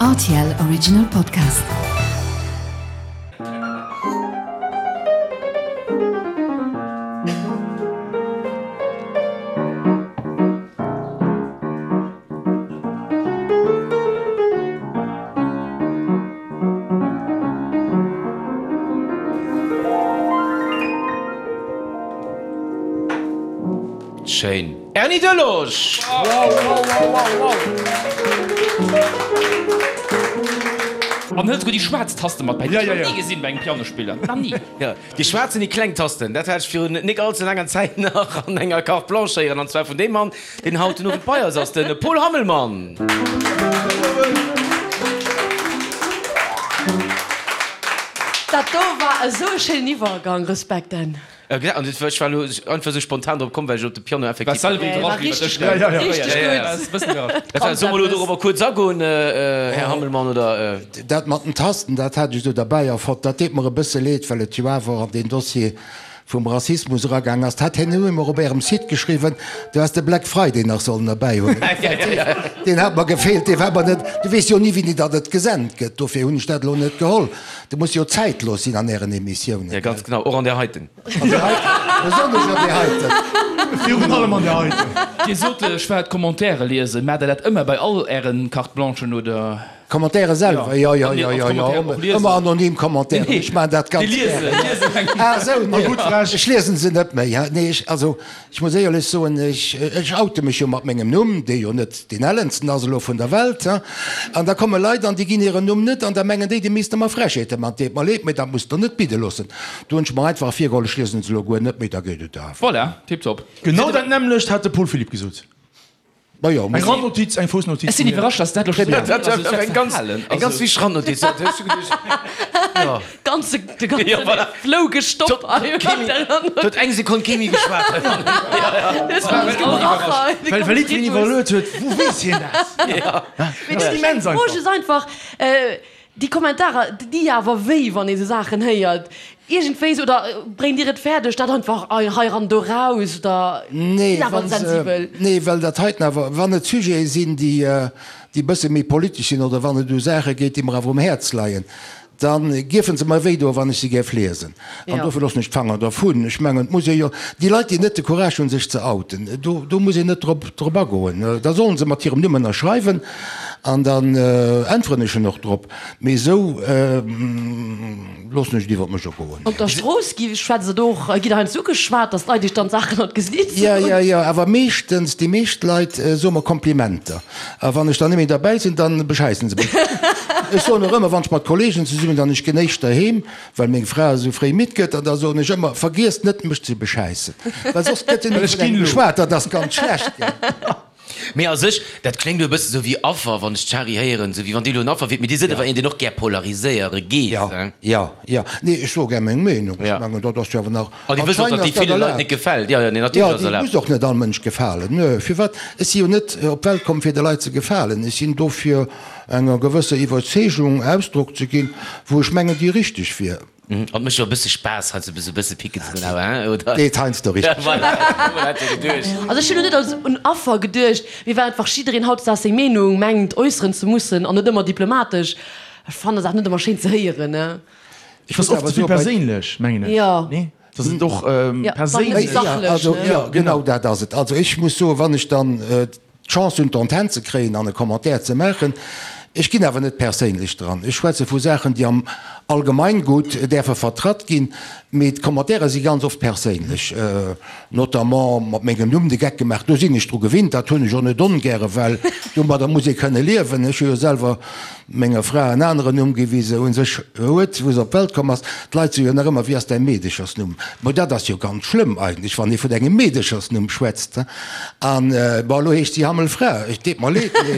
Rtl Original Podcast. Schéin. Erny Delosch! An hëlt souguer déi schwaarz Taste mat bäi. Déi hu ech nach ni gesinn bei engem Pianospiller. Nach ni. Jo, déi schwaarz an déi kleng Tasten, dat hat ech virun nik all ze laanger Zäit nach an enger Carte Blanche héieren. An zwar vun deem Mann, deen haut den Owend bei eis ass, de Paul Hammelmann. Dat do war esou e schéinen Iwwergang. Respekt, Dan. An ech war elo einfach esou spontan drop komm, well ech op de Piano effektiv. War selwer iwwerrascht iwwer dech, gell? Ja, richteg gutt. Solle mer elo dorobber kuerz agoen, Här Hammelmann, oder? Dat mat den Tasten, dat hat ech do derbäi erfonnt. Dat deet mer e bësse leed, well et jo awer an deen Dossier vum Rassismus eragaang ass. Dat hat hien elo emol op Ärem Site geschriwwen, du häss de Black Friday nach sollen erbäihuelen. Deen hat mer gefeelt, dee war mer net. Du weess jo ni, wéini datt et gesent gëtt, dofir hunn ech dat elo net geholl. Do muss jo zäitlos sinn an Ären Emissiounen. Jo, ganz genau, och an där heiten. An där heiten, besonnesch an där heiten. Virun allem an där heiten. Dir sot, ech war d'Commentairen liesen. Maacht Der dat ëmmer bei all Ären Carte Blanchen, oder? D'Commentairen selwer? Jo, jo, jo, jo, jo, ëmmer anonym Commentairen. Ech maachen dat ganz gären. Ah esou, nee, ech liesen se net méi. Nee, ech, also, Ech muss éierlech soen, ech, ech oute mech jo mat mengem Numm, dee jo net deen ellensten ass elo vun der Welt, hein. An da komme Leit an déi ginn hiren Numm net an da mengen déi, déi misste mer Frechheete man. Deet mer leed, mee dat musst Der net bidde loossen. Do hunn ech mer einfach virgeholl, ech liesen se elo guer net méi, da geet et awer. Voilà, tiptop. Genau dat nämmlecht hat de Paul Philipp gesot. Majo, Eng Randnotiz, eng Foussnotiz. Ech sinn iwwerrascht, dass dat elo scho Dat war eng ganz, eng ganz wichteg Randnotiz. Dat hues du geduecht. Jo. Ganze, de ganze Jo, voilà. Flow gestoppt. Huet eng Sekonn kee méi geschwat. Well well jiddwereen iwwerluet huet, wou weess hien dat? Mee dat ass immens einfach. D'Fro ass einfach, déi Kommentarer, déi di awer wéi, wann ee sou Saachen héiert. Iergendwéi sou, oder bréngt Dir et fäerdeg, dat einfach hei ran, do raus, oder Nee, sinn awer wann se, sensibel? nee, well dat heiten awer, wann et Sujete sinn, déi, déi e bësse méi politesch sinn, oder wann et u Saache geet, déi mer awer um Häerz leien, da gierfe se mer wéi doen, wann ech se géif liesen. An dofir loossen ech d'Fanger dervun. Ech mengen, et muss ee jo, déi Leit, déi net de Courage hunn, sech ze outen, do, do muss een net drop, drop agoen. Da sollen se mat hirem Numm ënnerschreiwen an dann äntweren ech en och drop. Mee esou loossen ech et iwwer mech ergoen. Op der Strooss gi schwätzt et och, gitt der heiansdo ugeschwat, datt d'Leit iech dann Saachen an d'Gesiit Jo, soen? jo, jo, awer meeschtens, déi meescht Leit soe mer Komplimenter. A wann ech dann net méi derbäi sinn, dann beschäissen se mech. Ech soen och ëmmer, wann ech mat Kollegen zesummen sinn an ech ginn éischter heem, well meng Fra esou fréi midd gëtt, an da soen ech ëmmer, Vergiesst net mech ze beschäissen, well soss gëtt jo net vun engem geschwat, dat ass ganz schlecht, gell. Mee a sech, dat kléngt elo e bësse sou wéi Affer, wann ech d'Shari héieren, sou wéi wann Dir elo en Affer wiert, mee Dir sidd awer een, deen och gär polariséiere geet, Jo, hein? jo, jo. Nee, ech soe gär meng Meenung. Ech Ja. mengen, dat ass jo awer nach, An Dir wësst och, anscheinend datt ass déi dat ville Leit erlaabt. net gefält. Jo, jo, nee, Jo, natierlech ass déi erlaabt. muss och net all Mënsch gefalen. Nö, firwat? Ech si jo net op d'Welt komm, fir de Leit ze gefalen. Ech sinn do, fir enger gewësser Iwwerzeegung Ausdrock ze ginn, wou ech mengen, déi richteg wier. An et mécht jo e bësse Spaass, heiansdo esou e bësse picken ze goen, awer, hein, oder? Deet heiansdo richteg. Voilà, hat jo geduecht. Also ech hunn elo net als un Affer geduecht, mee well einfach jiddereen hautdesdaags seng Meenung mengt äusseren ze mussen an net ëmmer diplomatesch. Ech fannen dat net ëmmer schéin ze héieren, ne. Et ass oft ze vill perséinlech, mengen ech. Jo. Nee? Dass et och perséinlech. Sachlech, Also, ne? jo, genau dat ass et. Also ech muss soen, wann ech dann d'Chance hunn, d'Antenn ze kréien an e Commentaire ze maachen. Ech ginn awer net perséinlech dran. Ech schwätze vu Saachen, déi am Allgemeingut däerfe vertratt ginn, mee d'Commentairen si ganz oft perséinlech, notamment mat mengem Numm de Geck gemaach. Do sinn ech dru gewinnt, dat hunn ech och net ongäre, well domadder muss ee kënne liewen. Ech hu jo selwer menger Fra en aneren Numm gi wéi se u sech huet, wou se op d'Welt komm ass. D'Leit soe jo nach ëmmer, Wéi ass däi Meedechersnumm? Mo dat ass jo ganz schlëmm eigentlech, wann ee vun engem Meedechersnumm schwätzt. An bon, elo heescht si Hammelfra. Et deet mer leed, mee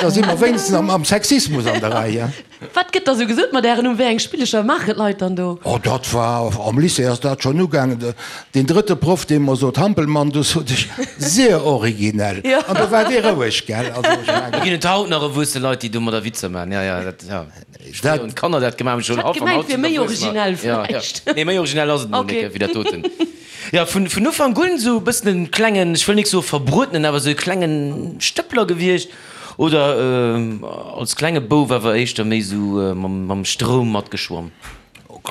da si mer wéinstens am Sexismus an der Rei. Wat gëtt da sou gesot mat Ären Numm? Wéi eng Spillecher maachen d'Leit dann do? Oh, dat war, am Lycée ass dat schonn ugaangen. Deen drëtte Proff, dee mer sot, Hampelmann, do sot ech, Sehr originell. An do war dee roueg, gell. Also ech mengen. Do ginn et haut nach erwuesse Leit, déi domadder Witzer maachen. Ja, ja, dat, ja. Fréier hunn d'Kanner dat gemaach, mee schon Ech hat gemengt, wier méi originell vläicht. Nee, méi originell ass et mol net, wéi dat doten. Jo, vun, vun Ufank un esou e bëssen en klengen, ech wëll nik soe verbruetenen, awer esou e klengen Stëppler gewiescht. Oder als klenge Bouf awer éischter méi sou mam Stroum matgeschwomm?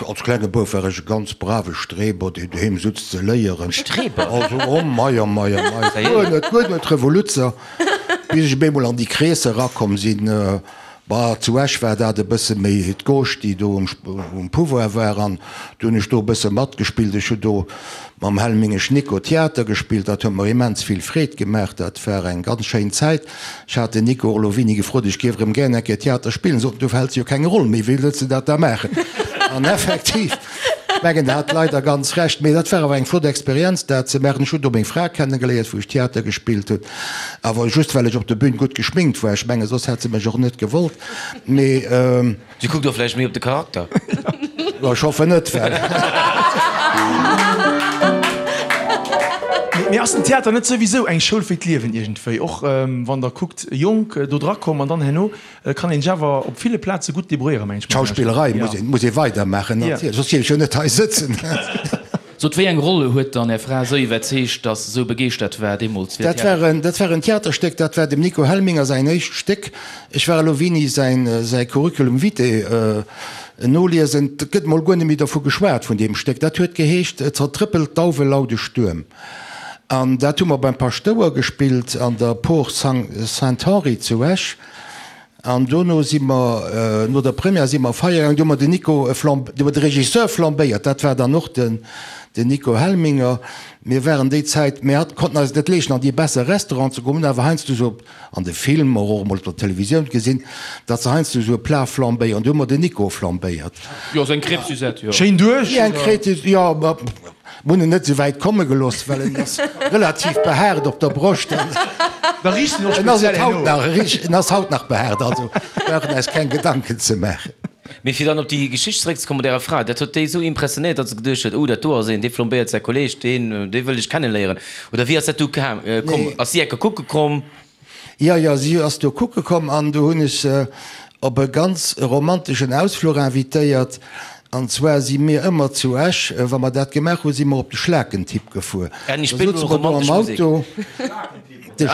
Als klenge Bouf war ech e ganz brave Streber, deen doheem sutz ze léieren. Streber? Also, oh mei, oh mei, oh mei, guer net, guer net Revoluzzer, bis ech op eemol an déi Kreesser erakomm sinn. Bah, zu Esch war dat e bësse méi d'Gauche, déi do um Pouvoir war, an du hunn ech do e bësse matgespillt. Ech hu do mam Helmingesch Nico Theater gespillt, dat huet mer immens vill Freed gemaach, dat war eng ganz schéin Zäit. Ech hat den Nico och elo wéini gefrot, ech géif erëm gären eng Kéier Theater spillen, sot en, du fäls jo keng Roll méi, wéi wëlls de dat da maachen? An effektiv, ech mengen, en hat leider ganz Recht, mee dat war awer eng flott Experienz, dat ze maachen. Ech hunn do meng Fra kennegeléiert, wou ech Theater gespillt hunn. Awer just well ech op der Bühn gutt geschminkt war. Ech mengen, soss hätt se mech och net gewollt. Mee. Si kuckt och vläicht méi op de Charakter. Jo, ech hoffen net, well. Mee ass den Theater net souwisou eng Schoul fir d'Liewen iergendwéi? Och wann der kuckt, jonk do dra komm an dann herno kann een sech awer op ville Plaze gutt debrouilléieren, mengen ech. D'Schauspillerei muss een, muss ee weidermaachen, natierlech, soss géif ech jo net hei sëtzen. Sot, wéi eng Roll huet dann Är Fra esou iwwerzeegt, dass se esou begeeschtert war deemools fir Dat war en, dat war en Theaterstéck, dat war dem Nico Helminger säin éischt Stéck. Ech war elo wéini säin, säi Curriculum vitae noliesen, et gëtt mol guer net méi dervu geschwat, vun deem Stéck. Dat huet geheescht Zertrëppelt Dauwe laude Stuerm. An dat hu mer beim Paschtouer gespillt an der Por Saint-Henri zu Esch. An dono si mer, no der Première si mer feiere gaangen, do hu mer den Nico flamb, do hu mer de Regisseur flambéiert, dat war dann och den, den Nico Helminger. Mir waren déi Zäit, mir hat, konnten eis et net leeschten an déi besser Restauranten ze goen, hunn awer heiansdo esou an de Filmer, och emol op der Televisioun gesinn, datt se heiansdo esou e Plat flambéieren. Do hu mer den Nico flambéiert. Jo, esou eng Crêpe Suzette, jo. Schéin duerch, oder? Eng Crêpe, jo, ma Mir hunn en net esou wäit komme gelooss, well en ass relativ behaart op der Broscht. Da riicht en och speziell herno. En ass haut nach behaart, also brauchen eis keng Gedanken ze maachen. Mee fir dann op déi Geschicht zeréckzekommen mat Ärer Fra, dat huet déi esou impressionéiert, datt se geduecht huet, oh dat do ass een, dee flambéiert säi Kolleeg, deen, dee wëll ech kenneléieren. Oder wéi ass dat du komm? Ass si enke kucke komm? Jo, jo, si ass do kucke komm an do hunn ech se op e ganz romanteschen Ausfluch invitéiert. An zwar si mir ëmmer zu Esch, wa mer dat gemaach hunn, si mer op de Schlakentipp gefuer. Da souze mer do am Auto. De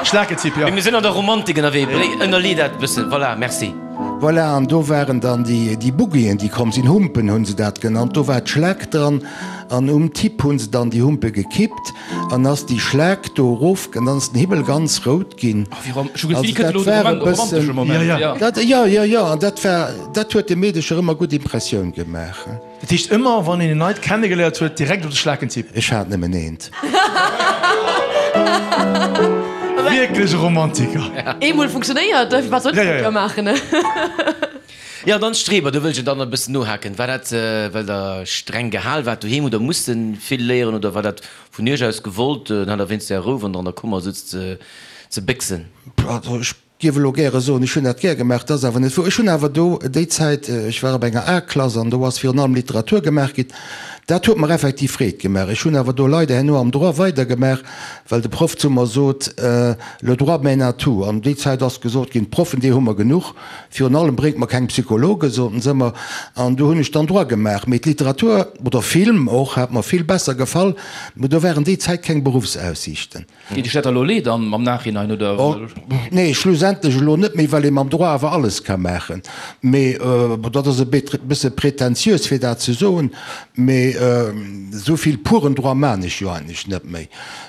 Schlakentipp, jo. Mir sinn an der Romantik ënnerwee, ënnerlee dat e bëssen. Voilà, merci. Voilà, an do waren dann déi Buggien, déi komm sinn, Humpen hu se dat genannt. Do war d'Schlak dran an um Tipp hu se dann déi Humpe gekippt. An ass déi Schlaak do erof, an dann ass den Himmel ganz rout ginn. Also dat war e bëssen, dat, jo, jo, jo, an dat war, dat huet de Meedecher ëmmer gutt Impressioun gemaach. Dat heescht ëmmer wann een en neit kennegeléiert huet, direkt op de Schlakentipp? Ech hat nëmmen eent. Wierklech e Romantiker. Eemol funktionéiert, wat soll ech da maachen? Jo, an dann d'Streber, do wëll ech dann e bëssen nohaken. War dat, well Der streng gehal waart doheem oder musst vill léieren oder war dat vun Iech aus gewollt, dann hat Der wéinst Är Rou, wann Der an der Kummer sutzt, ze béchsen? Also ech géif elo gäre soen, ech hunn dat gär gemaach, dat ass awer net wouer. Ech hunn awer do déi Zäit, ech war op enger A-Klass an do ass virun allem Literatur gemaach ginn, dat huet mer effektiv Freed gemaach. Ech hunn awer do leider herno am Droit weidergemaach, well de Proff zu mer sot, Le droit mène à tout. An déi Zäit ass gesot ginn, d'Proffen, déi hu mer genuch. Virun allem bréngt mer keng Psychologen, soten se ëmmer, an do hunn ech dann Droit gemaach. Mee d'Literatur oder Film och hat mer vill besser gefall, mee do waren déi Zäit keng Beruffsaussiichten. Deet Iech dat da elo leed am Nachhinein, oder? Nee, schlussendlech elo net méi, well ee mam Droit awer alles ka maachen. Mee dat ass e bësse prätentiös fir dat ze soen, mee esou vill puren Droit maan ech jo eigentlech net méi.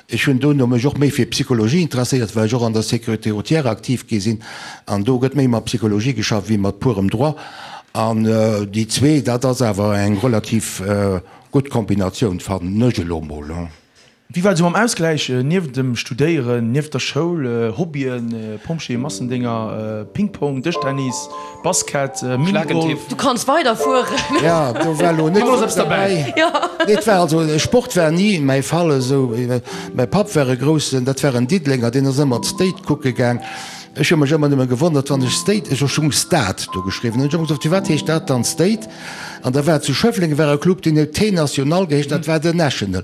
Ech hunn dono mech och méi fir Psychologie interesséiert, well ech och an der Sécurité routière aktiv gi sinn. An do gëtt méi mat Psychologie geschafft wéi mat purem Droit. An déi zwee, dat ass awer eng relativ gutt Kombinatioun, fannen ech elo mol. Wéi war et esou mam Ausgläich nieft dem Studéieren, nieft der Schoul, Hobbyen, Pompjeeë, Massendénger, Ping-Pong, Dëschtennis, Basket, Minigolf? Du kanns weiderfueren. Jo, do war elo net vill derbäi. Nee, et war also, Sport war ni mäi Fall esou. Mäi Papp war e groussen, dat war en Diddelenger, deen ass ëmmer d'State kucke gaang. Ech hu mech ëmmer nëmme gewonnert, wann ech State, ech hu Stad do geschriwwen, hunn ech ëmmer gesot, firwat heescht dat dann State? An da war zu Schëffleng war e Club, deen huet T-National geheescht, dat war den National.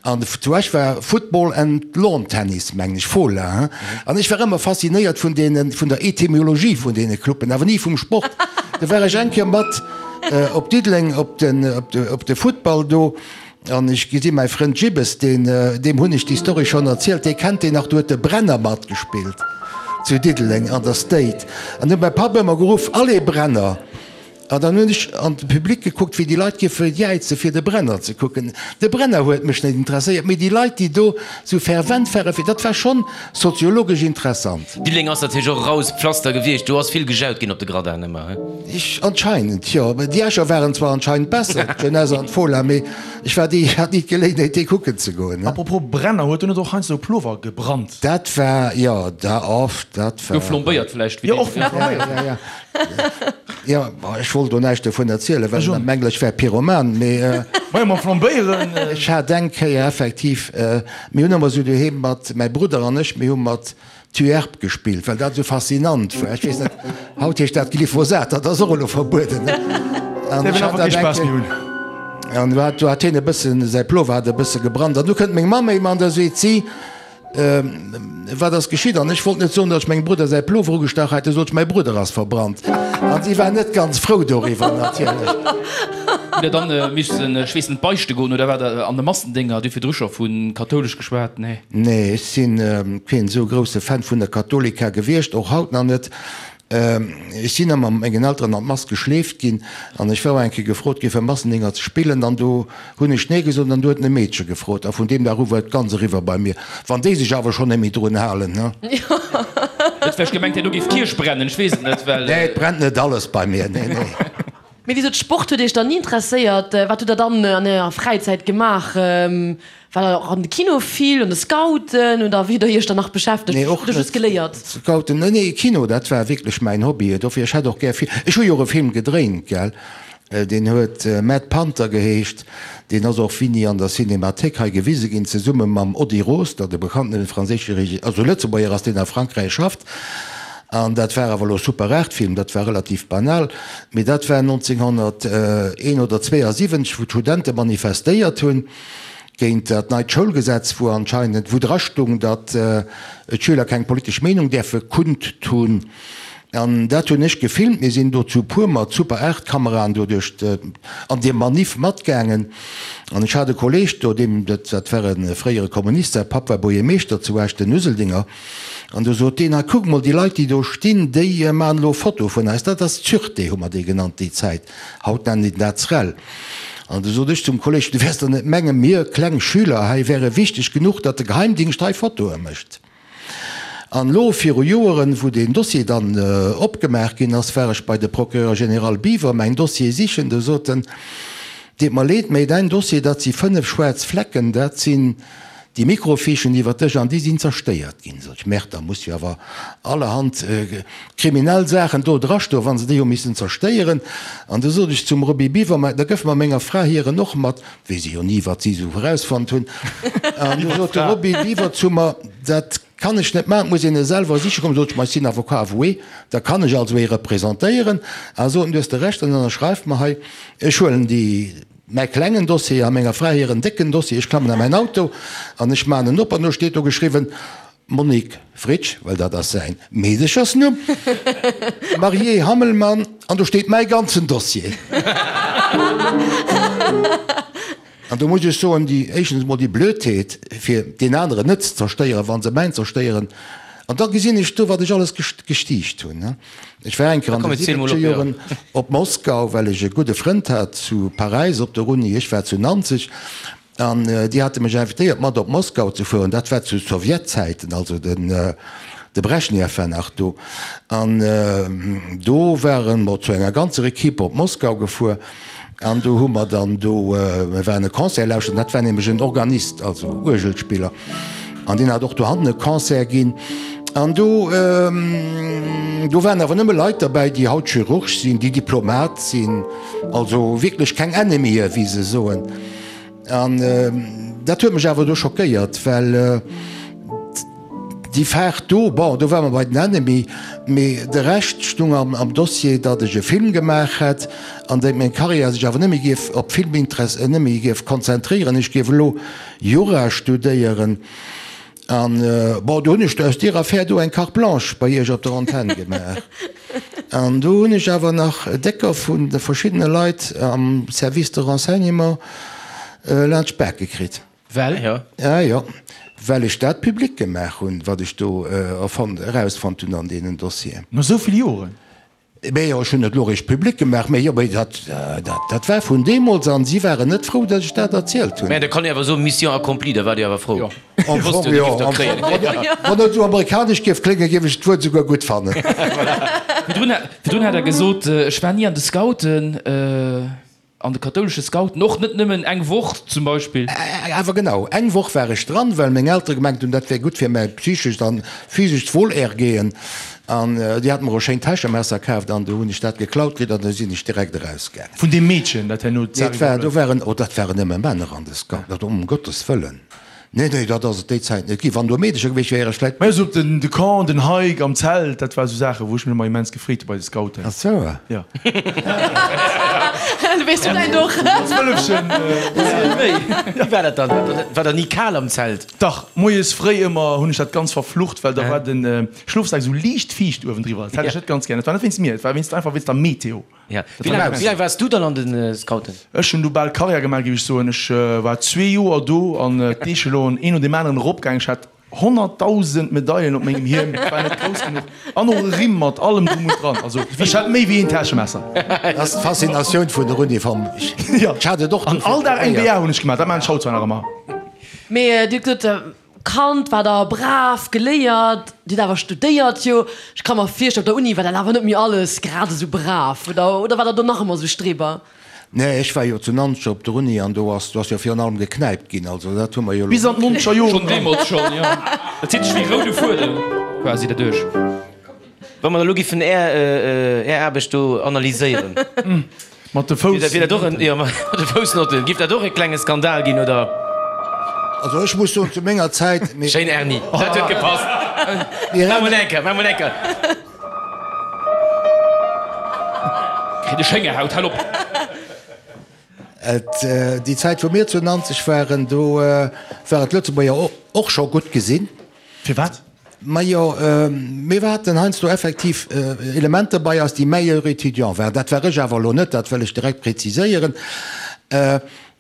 An zu Esch war Football and Lawn Tennis, mengen ech, Fola, hein. An ech war ëmmer faszinéiert vun deenen, vun der Etymologie vun deene Cluben, awer ni vum Sport. Du war ech eng Kéier mat op Diddeleng op den, op de Football do. An ech gesi mäi Frënd Jibbes, deen, deem hunn ech déi Story schonn erzielt, dee kennt deen nach, do huet de Brenner matgespillt. zu Diddeleng an der State. An du huet mäi Papp ëmmer geruff, Allez Brenner! An dann hunn ech an de Public gekuckt, wéi déi Leit géife jäize fir de Brenner ze kucken. De Brenner huet mech net interesséiert, mee déi Leit, déi do sou fervent ware fir, dat war schonn soziologesch interessant. Diddeleng ass natierlech och e raues Pflaster gewiescht, do ass vill gejaut ginn op de Gradin ëmmer, he? Ech, anscheinend, jo. Déi Escher waren zwar anscheinend besser, d'Jeunesse an d'Fola, mee ech war déi, hat ni d'Geléinheet, déi kucken ze goen, he. Apropos Brenner, huet do net och heiansdo e Plover gebrannt? Dat war, jo, da, oft, dat war. Gouf flambéiert vläicht, wéi Jo, och flambéiert. Ja, ja. Jo, ech wollt do näischt dovun erzielen, well ech mengen, ech wär Pyroman, mee. Majo, mam Flambéieren. Ech hat eng Kéier effektiv, mir hunn ëmmer esou doheem mat, mäi Brudder an ech, mir hu mat Tuerp gespillt, well dat esou faszinant war. Ech weess net, haut heescht dat Glyphosat, dat ass och elo verbueden, ne? An ech hat dat eng Kéier, an do hat, do hat hien e bëssen, säi Plover hat e bësse gebrannt. An du kënnt meng Mamm éim an da seet si, Wat ass geschitt? An ech wollt net soen, datt ech mengem Brudder säi Plover ugestach hat, du sot ech, mäi Brudder ass verbrannt. An si war net ganz frou doriwwer natierlech. Hutt Der dann missen, ech weess net, beichte goen oder waart Der an de Massendénger? Dir hutt virdru scho vu kathoulesch geschwat, nee? Nee, ech si keen esou grousse Fan vun der Katholika gewiescht, och haut nach net. Ech sinn ëmmer mat mengen Elteren an d'Mass geschleeft ginn an ech war och eng Kéier gefrot gi fir Massendénger ze spillen an do hunn ech nee gesot an du huet en e Meedche gefrot a vun deem Dag u war et ganz eriwwer bei mir. Wann déi sech awer schonn net méi drun halen, ne? Huet vläicht gemengt, herno géif d'Kierch brennen, ech weess et net, well. Nee, et brennt net alles bei mir, nee, nee. Mee wéi sot, Sport huet Iech dann ni interesséiert? Wat hutt Der dann an Ärer Fräizäit gemaach? War der och an de Kino vill, an de Scouten oder wéi hutt Der Iech dann nach beschäftegt? Nee, och Oder just net. geléiert? Scouten, nee, nee, Kino, dat war wierklech mäin Hobby. Dofir, ech hätt och gär vill, ech hu jo och e Film gedréint, gell, deen huet Mad Panther geheescht, deen ass och wini an der Cinémathéik hei gewise ginn, zesumme mam Ody Roster, de bekannten franséische Regi, also Lëtzebuerger ass, deen a Frankräich schafft. An dat war awer elo Super 8 Film, dat war relativ banal, mee dat war 1971 oder 72, wou d'Studente manifestéiert hunn géint dat neit Schoulgesetz, wou anscheinend, wou dra stung, datt d'Schüler keng politesch Meenung däerfe kundtun. An dat hunn ech gefilmt. Mir sinn do zu puer mat Super 8 Kameraen do duerch an deem Manif matgaangen. An ech hat e Kolleeg do, deem, dat war e fréiere Kommunist, säi Papp war Buergermeeschter zu Esch, den Useldinger. An du sot deen, Hei kuck mol, déi Leit, déi do stinn, déi maachen elo Fotoe vun eis. Dat ass d'Sûreté, hu mer déi genannt déi Zäit. Haut nennen déi dat SREL. An du sot ech zum Kolleg, Du wäers der net mengen, mir kleng Schüler hei wäre wichteg genuch, datt de Geheimdingscht hei Fotoe mécht. An elo viru Joeren, wou deen Dossier dann opgemaach ginn ass, war ech bei de Procureur général Biwer mäin Dossier sichen. Du sot en, Deet mer leed, mä däin Dossier, dat si 5 schwaarz Flecken, dat sinn Déi Microfichen iwwer dech an déi sinn zerstéiert ginn. Sot ech, Merde, da muss jo awer allerhand kriminell Saachen do drastoen, wa se déi hu missen zerstéieren. An du sot ech zum Roby Biwer, Ma da gëff mer menger Fra hiren och mat, weess ech jo ni, wat si esou erausfonnt hunn. An du sot de Roby Biwer zu mer, Dat kann ech net maachen, et muss een e selwer siche kommen. Sot ech, Ma ech sinn Avocat avoué, da kann ech also ee representéieren. A sot en, Du hues de Recht, dann ënnerschreif mer hei, ech huelen déi. Mäi klengen Dossier a menger Fra hiren décken Dossier. Ech klammen a mäin Auto an ech maachen en op an do steet do geschriwwen, Monique Fritsch, well dat ass säin Meedechersnumm, mariée Hammelmann an do steet mäi ganzen Dossier. An do muss ech soen, déi, éischtens emol déi Blödheet, fir deen aneren net ze zerstéieren, wa se mäin zerstéieren. An da gesinn ech do, wat ech alles gestiicht hunn. Ech war eng Kéier an de siwwenzeger Joren op Moskau, well ech e gudde Frënd hat zu Paräis op der Uni. Ech war zu Nanzeg an déi hate mech invitéiert, mat op Moskau ze fueren. Dat war zu Sowjetzäiten, also den de Breschnew war nach do. An do ware mer zu enger ganzer Equipe op Moskau gefuer. An do hu mer dann do, mir waren e Concert lauschteren, dat war nämlech en Organist, also Uergelspiller, an deen hat och dohannen e Concert ginn. An do, do waren awer nëmme Leit derbäi, déi haut Chirurg sinn, déi Diplomat sinn, also wierklech keng Ennemien, wéi se soen. An dat huet mech awer do schockéiert, well déi Faart do, bon, do ware mer bei den Ennemie, mee de Rescht stung am Dossier, datt ech e Film gemaach hätt an datt meng Karriär sech awer net méi géif op Film net méi géif konzentréieren, ech géif elo Jura studéieren. An, bon, do hunn ech aus deer Affär do eng Carte blanche bei Iech op der Antenn gemaach. An do hunn ech awer nach décker vun de verschiddene Leit am Service de renseignement laanscht d'Bak gekritt. Well? Ja, jo. Well ech dat public gemaach hunn, wat ech do erfonnt, erausfonnt hunn an deenen Dossieren. No esou vill Joren? Mee jo, ech hunn et elo eréischt public gemaach. Mee jo, mee dat, dat, dat war vun deemools an si waren net frou, datt ech dat erzielt hunn. Mä da kann ee awer soen, Mission accomplie, da waart Dir awer frou. Jo. Am Fong jo. Wann et esou amerikanesch géif kléngen, géif ech d'Wuert esouguer gutt fannen. Virdrun, virdrun hat Der gesot, ech war ni an de Scouten. An de kathoulesche Scouten och net nëmmen eng Woch zum Beispill? Awer genau eng Woch war ech dran, well meng Eltere gemengt hunn, dat wär gutt fir mäi psychescht an physescht Wohlergehen. An déi hate mer och schéin Täschemesser kaaft an du hunn ech dat geklaut kritt an da sinn ech direkt erausgaangen. Vun deem Meedchen, dat herno d'Sari Nee, et war, do waren, oh, dat waren nëmme Männer an de Scouten, um Gottes Wëllen. Nee, nee, dat ass et déi Zäit net ginn. Wann do Meedecher gewiescht wieren, vläit. Mä esou op den, de Camp, den Hike am Zelt, dat war esou Saachen, wou ech mech ëmmer immens gefreet hu bei de Scouten. Ach sou. Jo. Du weess du däin och. Als Wëllefchen. Wéi war dat dann? War der ni kal am Zelt? Dach, moies fréi ëmmer hunn ech dat ganz verflucht, well da war de Schlofsak esou liicht fiicht uewendriwwer. Dat hat ech net ganz gär. Dat war net wéinst mir, et war wéinst, einfach wéinst der Meteo. Ja. Wéi laang, wéi laang waars du dann an de Scouten? Ech hunn du bal Karriär gemaach, géif ech soen. Ech war zwee Joer do an d'Echelon een no deem aneren eropgaangen. Ech hat 100.000 Medailen op mengem Hiem, et war net grouss genuch. An och e Rimm mat allem drum und dran. Also ech hat méi wéi een Täschemesser. Dat ass d'Faszinatioun vun der Uniform. Ech hat et och An all Dag eng BA hunn ech gemaach. Dat maachen ech haut zwar nach ëmmer. Mee Dir hutt gesot, Kand war der brav, geléiert, Dir hutt awer studéiert, jo. Ech ka mer virstellen, op der Uni war dat awer net méi alles grad esou brav, oder? Oder war der do nach ëmmer esou Streber? Nee, ech war jo zu Nanzeg op der Uni an do ass, do ass jo virun allem geknäipt ginn, also dat hu mer jo elo. Bis an d'nonzeger Joren. Schonn deemools schonn, jo. Dat zitt sech wéi roude Fuedem quasi derduerch. Wa mer elo giffen Är, Är Aarbecht do analyséieren. Mat de Foussnotten. Wier dat och en, jo, mat de Foussnotten. Giff dat och e klenge Skandal ginn, oder? Also ech muss soen, zu menger Zäit, mir. Schéin Erni, dat huet gepasst. Maach mol eng Kéier, maach mol eng Kéier. Kritt ech Héngerhaut, hal op! Et, déi Zäit wou mir zu Nanzeg waren, do war et Lëtzebuerger och scho gutt gesinn. Firwat? Majo, mir haten heiansdo effektiv Elementer bei eis, déi meilleur étudiant waren. Dat war ech awer elo net, dat wëll ech direkt präziséieren.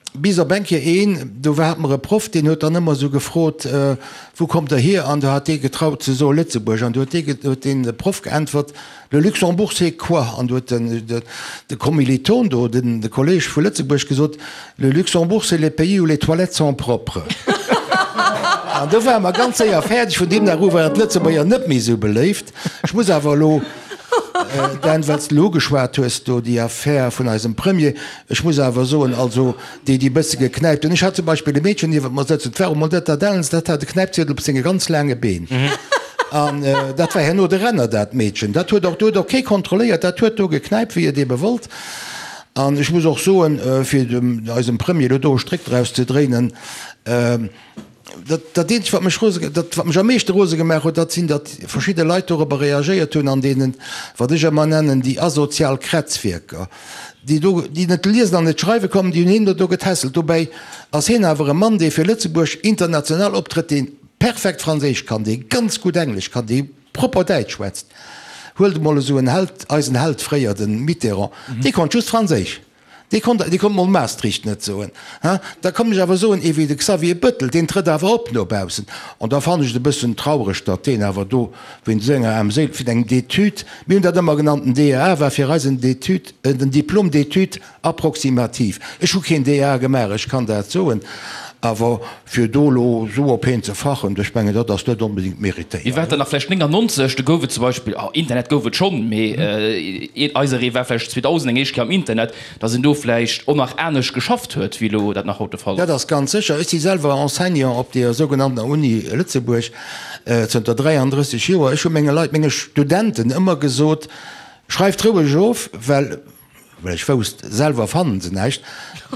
Bis op eng Kéier een, do hate mer e Proff, deen huet dann ëmmer esou gefrot, Wou kommt Der hier? An do hat dee getraut ze soe Lëtzebuerg. An do huet dee, huet dee Proff geäntwert, Le Luxembourg c'est quoi? An do huet den, de Kommiliton do, den, de Kolleg vu Lëtzebuerg gesot, Le Luxembourg c'est le pays où les toilettes sont propres. An do ware mer ganz séier fäerdeg. Vun deem Dag u waren d'Lëtzebuerger net méi esou beléift. Ech muss awer elo, Dan, well s de elo ugeschwat hues do déi Affär vun eisem Premier, ech muss awer soen, also déi, déi e bësse geknäipt hunn, ech hat zum Beispill e Meedchen niewent mer sëtzen, 't war emol net dat Ellens, dat hat e Knäipziedel op senge ganz laange Been. An dat war herno de Renner, dat Meedchen. Dat huet och, do huet och kee kontrolléiert, dat huet do geknäipt, wéi et ebe wollt. An ech muss och soen, fir dem eisem Premier elo do e Stréck draus ze dréinen, dat, dat eenzegt, wat mech rose, dat, wat mech am meeschte rose gemaach huet, dat sinn, datt verschidde Leit dorobber reagéiert hunn an deenen, wat ech ëmmer nennen, déi asozial Krätzwierker, déi do, déi net liesen an net schreiwe kommen, déi hunn hien do do getässelt. Dobäi ass hien awer e Mann, dee fir Lëtzebuerg international optrëtt, dee perfekt Franséisch kann, dee ganz gutt Englesch kann, dee propper Däitsch schwätzt. Huelt emol esou en Held, eisen Held fréier, de Mitterrand, dee konnt just Franséisch. Dee konnt, dee konnt mol Maastricht net soen. Ha, da kann ech awer soen, ee wéi de Xavier Bettel, deen trëtt awer op no baussen. An da fannen ech et e bëssen traureg, datt deen awer do wéinst esou enger Aarmséil, vun engem D'études, mir hunn dat ëmmer genannt, den DEA war fir eis en D'études, en Diplôme d'études approximative. Ech hu keen DEA gemaach, ech kann dat soen, awer fir do elo esou op heen ze fachen, ech mengen, dat ass net onbedéngt méritéiert. Mir war dann nach vläicht 99, do gouf et zum Beispill, oh, Internet gouf et schonn, mee eiseree war vläicht 2000 eng éischt Kéier am Internet, datt een do vläicht och nach anescht geschafft huet, wéi elo dat nach haut de Fall ass. Dat ass ganz sécher. Ech si selwer Enseignant op deer sougenanntener Uni Lëtzebuerg zënter 33 Joer. Ech hu menge Leit, menge Studenten ëmmer gesot, Schreift roueg of, well Well ech wousst, selwer fannen se näischt.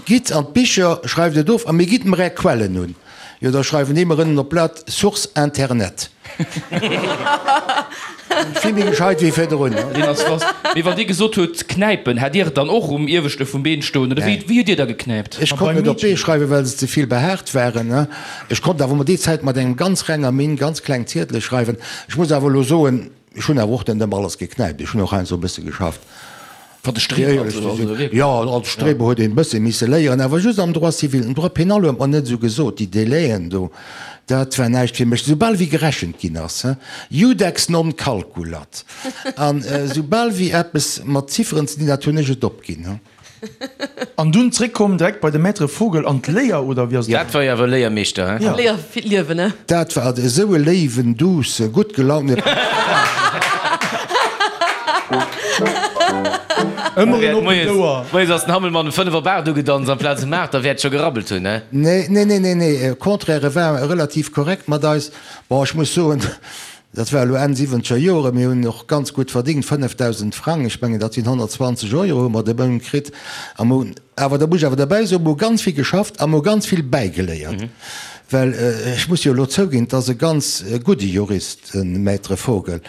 Gitt an d'Bicher, schreift et of a mir gitt mer är Quellen un. Jo, da schreiwen déi mer ënnen op d'Blat, Source Internet. Vill méi gescheit wéi virdrun. Deen ass wass. Mee wann Dir gesot hutt knäipen, hat Dir et dann och um ieweschte vum Been stoen oder wéi wéi hutt Dir da geknäipt? Ech konnt net op d'Bee schreiwen, well se ze vill behaart waren. Ech konnt awer mol déi Zäit mat engem ganz renger Minn ganz kleng Ziedele schreiwen. Ech muss awer elo soen, Ech hunn awer och net ëmmer alles geknäipt, ech hunn och heiansdo e bësse geschafft. Wat de Streber an esou, also wierklech? Jo, als Streber huet een e bësse misse léieren, awer just am Droit civil. Den Droit pénal huet mer net esou gesot, déi Délaiën do. Dat war näischt fir mech. Soubal wéi gerechent ginn ass, he, Iudex non calculat. An soubal wéi eppes mat Zifferen ze dinn hat, hunn ech et opginn, he. An dunn zréckkomm direkt bei de Maître Vogel an d'Léier, oder wéi ass et? Dat war jo awer e Léiermeeschter, he? Ja. Léier fir d'Liewen, he? Dat war esou e léiwen, douce, gutt gelaunte. Ëmmer en oppent Ouer. Moies ass den Hammelmann um 5 op 8 ugedanzt amplaz um 8, da wäert scho gerabbelt hunn, he? Nee, nee, nee, nee, nee, au contraire, e war relativ korrekt mat eis. Bon, ech muss soen, dat war elo Enn siwwenzeger Jore, mir hunn och ganz gutt verdingt, 5.000 Frang, ech mengen dat sinn 120 Euro hu mer de Mount kritt. A mer hunn awer, da muss ech awer derbäi soen, mer hu ganz vill geschafft a mer hu ganz vill bäigeléiert. Well ech muss jo elo zouginn, et ass e ganz gudde Jurist, de Maître Vogel.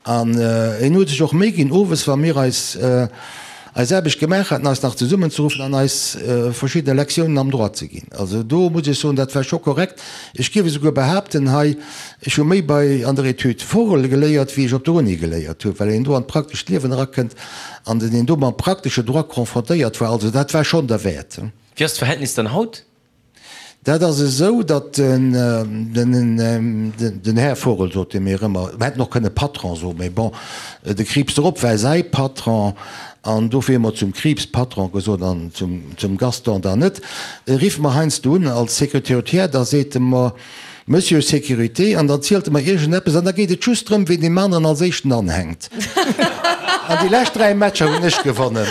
An en huet sech och Méi ginn, owes, wa mir eis eis Aarbecht gemaach haten, eis nach zesummenzeruffen an eis verschidde Lektiounen am Droit ze ginn. Also do muss ech soen, dat war scho korrekt. Ech géif esouguer behaapten hei, ech hu méi bei an der Etüd Vogel geléiert, wéi ech op der Uni geléiert hu, well een do an d'praktescht Liewen erakënnt an den een do mam praktesche Droit confrontéiert war. Also dat war schonn derwäert. Wéi ass d'Verhältnis dann haut? Dat ass esou, datt den Här Vogel, sot e mir ëmmer, mer hätten och kënne Patron soen, mä bon, de Krieps drop war säi Patron an dofir hu mer zum Krieps Patron gesot an zum Gaston dann net, rifft mer heiansdo un als Secrétaire, da seet e mer, Monsieur Sécurité, an dann zielt e mer iergendeppes an da geet et just drëm, ween deem aneren als éischten anhänkt. An déi lescht 3 Matcher hunn ech gewonnen.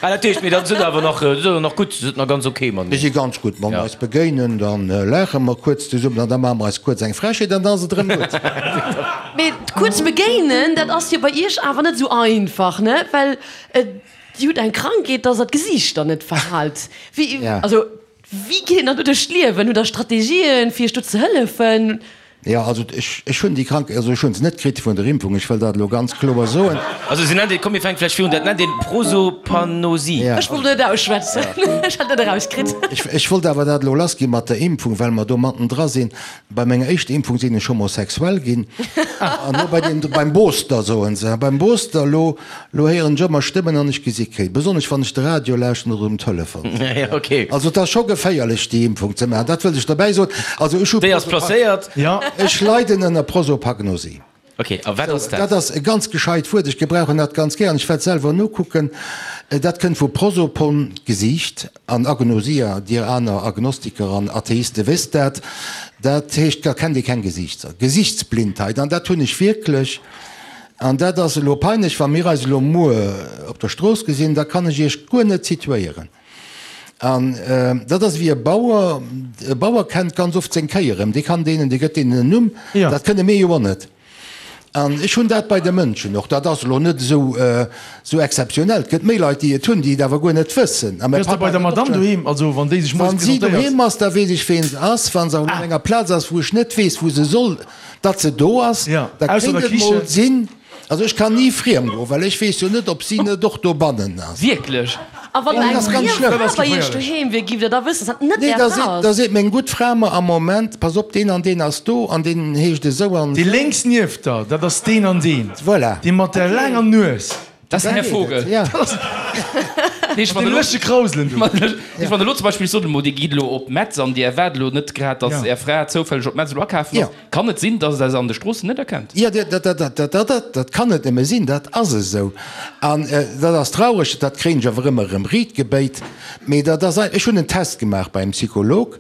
Ah, dat heescht, mee dann sidd der awer nach, sidd der nach gutt, sidd nach ganz ok mateneen? Mir si ganz gutt. Wa mer eis begéinen, da laache mer kuerz zesummen an da maache mer eis kuerz eng Frechheet an da ass et erëm gutt. Mee kuerz begéinen, dat ass jo bei Iech awer net esou einfach, ne? Well Dir hutt eng Krankheet, dass Der d'Gesiichter net verhaalt. Wéi, also Wéi geet een dann do duerch d'Liewen? Hutt der Strategien, fir iech do ze hëllefen? Jo, also ech, ech hunn déi Krank, also ech hunn se net kritt vun der Impfung, ech wëll dat elo ganz kloer soen. Also se nennt een, komm mir fänke vläicht virun, dat nennt een Prosopagnosie. Ja. Ech wollt et net ausschwätzen, ech hat et net erauskritt. Ech, ech wollt awer dat elo lassgi mat der Impfung, well mer do mattendra sinn. Bei menger éischter Impfung sinn ech homosexuell ginn. An elo bei deem, beim Booster soen se, beim Booster, elo, elo héieren ech ëmmer Stëmmen an ech gesi kee, besonnesch wann ech de Radio lauschten oder um Telefon sinn. Ja, okay. Also et ass scho geféierlech déi Impfung ze maachen, dat wëllt ech derbäi soen. Also ech hu Déi ass placéiert. Ech leiden ënner Prosopagnosie. Ok, a wat ass dat? Dat ass e ganz gescheit Wuert, ech gebrauchen dat ganz gär an ech wäert selwer nokucken. Dat kënnt vu prosopon, Gesiicht, an Agnosia, dir aner Agnostiker an Atheiste wësst dat, dat heescht, da kennt ee keng Gesiichter, Gesichtsblindheit, an dat hunn ech wierklech. An dat ass elo peinlech, wa mir eis elo muer op der Strooss gesinn, da kann ech iech guer net situéieren. An dat ass ewéi e Bauer, e Bauer kennt ganz oft seng Kéi erëm, dee kann deenen, dee gëtt deenen en Numm, dat kënne mir jo och net. An ech hunn dat bei de Mënschen och, dat ass elo net esou esou exzeptionell, et gëtt méi Leit, déi et hunn, déi et awer guer net wëssen. A mäi Wéi ass dat Papp bei der hat et och Madamm schonn. doheem, also wann déi sech moies Wann si presentéiert? doheem ass, da weess ech ween se ass, wa se awer op enger Plaz ass, wou ech net weess, wou se soll, datt se do ass, da Ausser kéint der et mol Kichen. sinn, Also ech kann ni friem goen, well ech weess jo net, ob si net och dobannen ass. Wierklech? A wann Dat eng ass ganz friem schlëmm. Fra bei iech doheem wier, giff der da wëssen, dass dat net Nee, är da Fra seet, da ass? seet meng gutt Fra mer am Moment, pass op, deen an deen ass do an deen heescht esou an Dee esou. lénks nieft der, dat ass deen an deen. Voilà. Dee mat der laanger Nues. Dat ass den Här Vogel. Ja. Nee, ech Mat deem lëschtege Krauselen do. Ech wann elo zum Beispill, ech soen emol, Dir gitt elo op Metz an Dir erwaart elo net grad, dass Är Fra zoufälleg op Metz elo akafen ass. Kann et sinn, dass Der se an de Stroossen net erkennt? Jo, dat kann net nëmme sinn, dat ass esou. An dat ass traureg, dat kréien ech awer ëmmer erëm riit gebéit. Mee dat ass ein, ech hunn en Test gemaach bei engem Psycholog,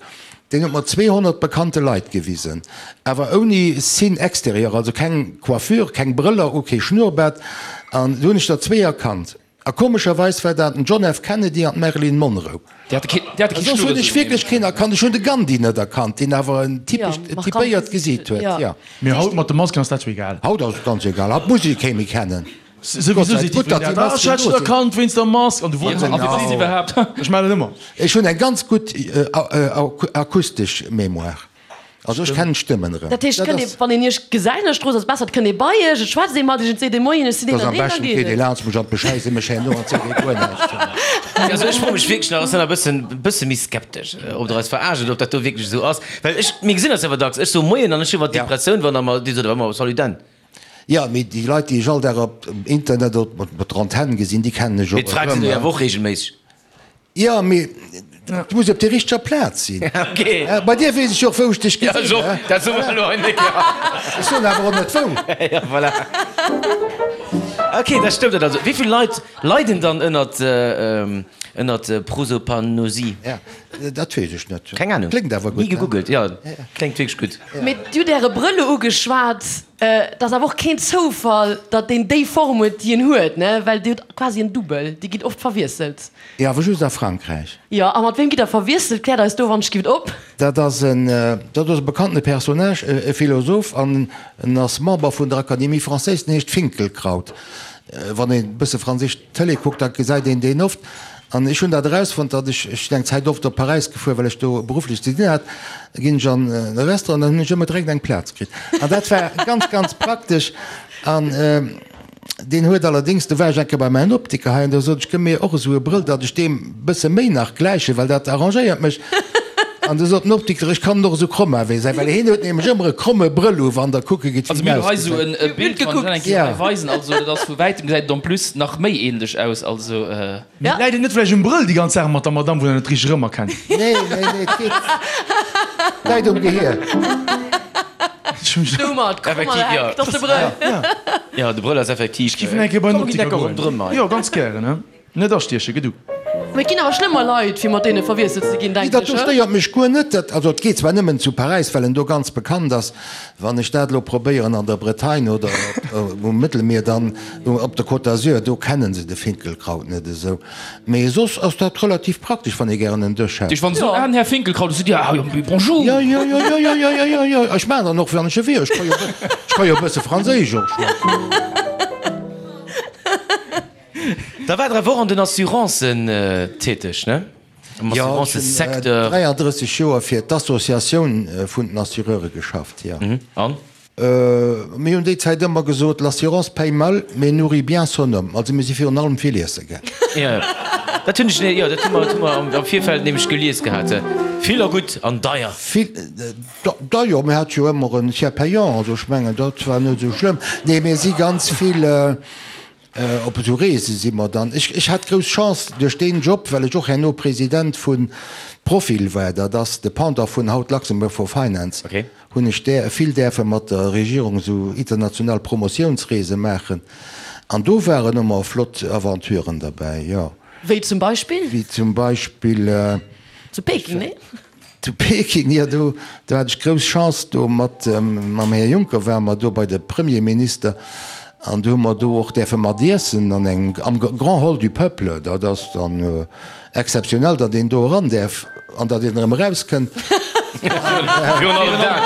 deen huet mer 200 bekannte Leit gewisen, awer ouni Signe extérieur, also keng Coiffure, keng Brëller u, kee Schnurrbart, an do hunn ech der zwee erkannt. A komescherweis war dat den John F. Kennedy an d'Marilyn Monroe. Déi hate kee, déi hate kee Soss hunn ech Schnurres wierklech keen erkannt. Ech hunn de Gandhi net erkannt, deen awer en Ja, typescht, markant typéiert Gesicht Gesiit huet. ja. Ja. Mee haut mat de Masken ass dat jo egal. Haut ass et ganz egal. Haut muss ee kee méi kennen. Gott Souwisou sei seet gutt, datt jiddwereen déi dat. Ah, ech Masken hat do dech sinn. erkannt wéinst der Mask. An du wonners dech, A wie si se Genau. iwwerhaapt? Ech maachen dat ëmmer. Ech hunn eng ganz gutt akustesch Mémoire. Also ech kennen d'Stëmmen erëm. Dat heescht, kënnt ee, wann een iech gesäit an der Strooss, ass besser, et kënnt ee bei iech, et schwätzt ee mat iech, et seet ee Moien, ech sinn deen Dass an am deen, dann beschten geet geet ee et. laanscht mech an beschäisse mech herno an seet ee guer näischt zu mer. Also ech froe mech wierklech nach, ech sinn nach e bëssen, bësse méi skeptesch, ob der eis verarscht oder ob dat do wierklech esou ass. Well ech, mir gesinn eis awer dacks, ech soe Moien an ech hu iwwer d'Depressioun, wann der mer, Dir sot awer ëmmer Salut Dan. Jo, mee déi Leit, déi ech all Dag op Internet oder op der Antenn gesinn, déi kennen ech Mee och d'Fra gesitt Der jo erëm. awer och reegelméisseg. Jo, mee. Du muss op der richteger Plaz sinn. Okay. Bei dir weess ech jo och, wou ech dech gesinn hunn. Ja, dat soe mer elo hei net. Ech soen awer och net wou. Ja, voilà. Okay, dat stëmmt dat also. Wéi vill Leit leiden dann ënnert, ënnert Prosopagnosie? Ja, dat weess ech net. Keng Ahnung. Kléngt awer gutt. Ni gegoogelt, ja. Kléngt wierklech gutt. Mee Dir hutt Äre Brëll elo ugeschwat. Et ass awer och keen Zoufall, datt deen déi Form huet, déi en huet, ne? Well Dir hutt quasi en Dubbel. Dir gitt oft verwiesselt. Jo, awer just a Frankräich. Jo, a mat wem gitt Der verwiesselt? Kläert eis do wann ech gift op. Dat ass en, dat ass e bekannte Personnage, e Philosoph an en ass Member vun der Académie française, den heescht Finkielkraut. Wann een e bësse franséisch Tëlee kuckt, da gesäit een deen oft. An ech hunn dat erausfonnt, datt ech, ech sinn eng Zäit oft op Paräis gefuer, well ech do berufflech ze dinn hat, da ginn ech an e Restaurant, dann hunn ech ëmmer direkt eng Plaz kritt. An dat war ganz, ganz praktesch. An deen huet allerdéngs, do war ech eng Kéier bei mäin Optiker hei an do sot ech, gëmm mir och esou e Brëll, datt ech deem bësse méi nach gläichen, well dat arrangéiert mech. An du sot den Optiker, ech kann en och esou kromm maachen, wéi e säi, well hien huet nämlech ëmmer e kromme Brëll u, wann Der kucke gitt, wéi en Also mir hu hei esou ausgesäit. e Bild, wann ech dat eng Kéier hei weisen, also dat ass vu wäitem gesäit et en plus nach méi ähnlech aus, also. Mee läit et net vläicht um Brëll, déi ganz Saach mat der Madame, wou der net richteg erëmerkennt? Nee, nee, nee, et geet, läit um Gehier. Domat, Effektiv, krommer jo. Heck, dat ass de Brëll. Jo, de Brëll ass effektiv. Ech giff en eng Kéier bei den Komm, mir ginn Optiker enker ronderëm goen. hei. Jo, ganz gären, he. Net astiechen, gedu. Mee et ginn awer schlëmmer Leit, fir mat deene verwiesselt ze ginn, Nee, denken dat ech, do he? stéiert mech guer net. Dat, also et geet zwar nëmmen zu Paräis, well en do ganz bekannt ass. Wann ech dat elo probéieren an der Bretagne oder um Mëttelmier, dann op der Côte d'Azur, do kennen se de Finkelkraut net esou. Mee soss ass dat relativ praktesch, wann ee gären en Dësch hätt. Dich wann se soen, ah, den Här Finkelkraut, du seet Dir, ah jo, bonjour. Jo, jo, jo, jo, jo, jo, jo, jo, jo. Ech maachen dann och, wann ech e wier. Ech ka jo, ech ka jo e bësse Franséisch och schwätzen. Da war der awer och an den Assurancen täteg, ne? Am Jo, ech hunn Assurancesecteur. 33 Joer fir d'Associatioun vun den Assureure geschafft, jo. An? Mir hunn déi Zäit ëmmer gesot, L'assurance paye mal, mais nourrit bien son homme. Also mir si virun allem vill iesse gaang. Jo, dat hunn ech, jo, dat hu mer, dat hu mer am Virfeld nämlech gelies gehat. Vill a gutt an deier. Vill, deier, mir hate jo ëmmer en Tiers payant, also ech mengen, dat war net esou schlëmm. Nee, mir si ganz vill. Op esou Reese si mer dann. Ech, ech hat grouss Chance duerch deen Job, well ech och herno President vu Profil war, dat ass de Pendant vun haut Luxembourg for Finance, hunn ech där, vill däerfe mat der Regierung esou international Promotiounsreese maachen. An do waren ëmmer flott Aventuren derbäi, jo. Wéi zum Beispill? Wéi zum Beispill. Zu Peking, nee? Zu Peking, jo, do do hat ech grouss Chance, do mat mam Här Juncker ware mer do bei de Premierminister an do hu mer do och däerfe mat iessen an engem, am Grand Hall du Peuple. Dat ass dann exzeptionell, datt een do eran däerf an datt een erëm erauskënnt. Virun allem dat.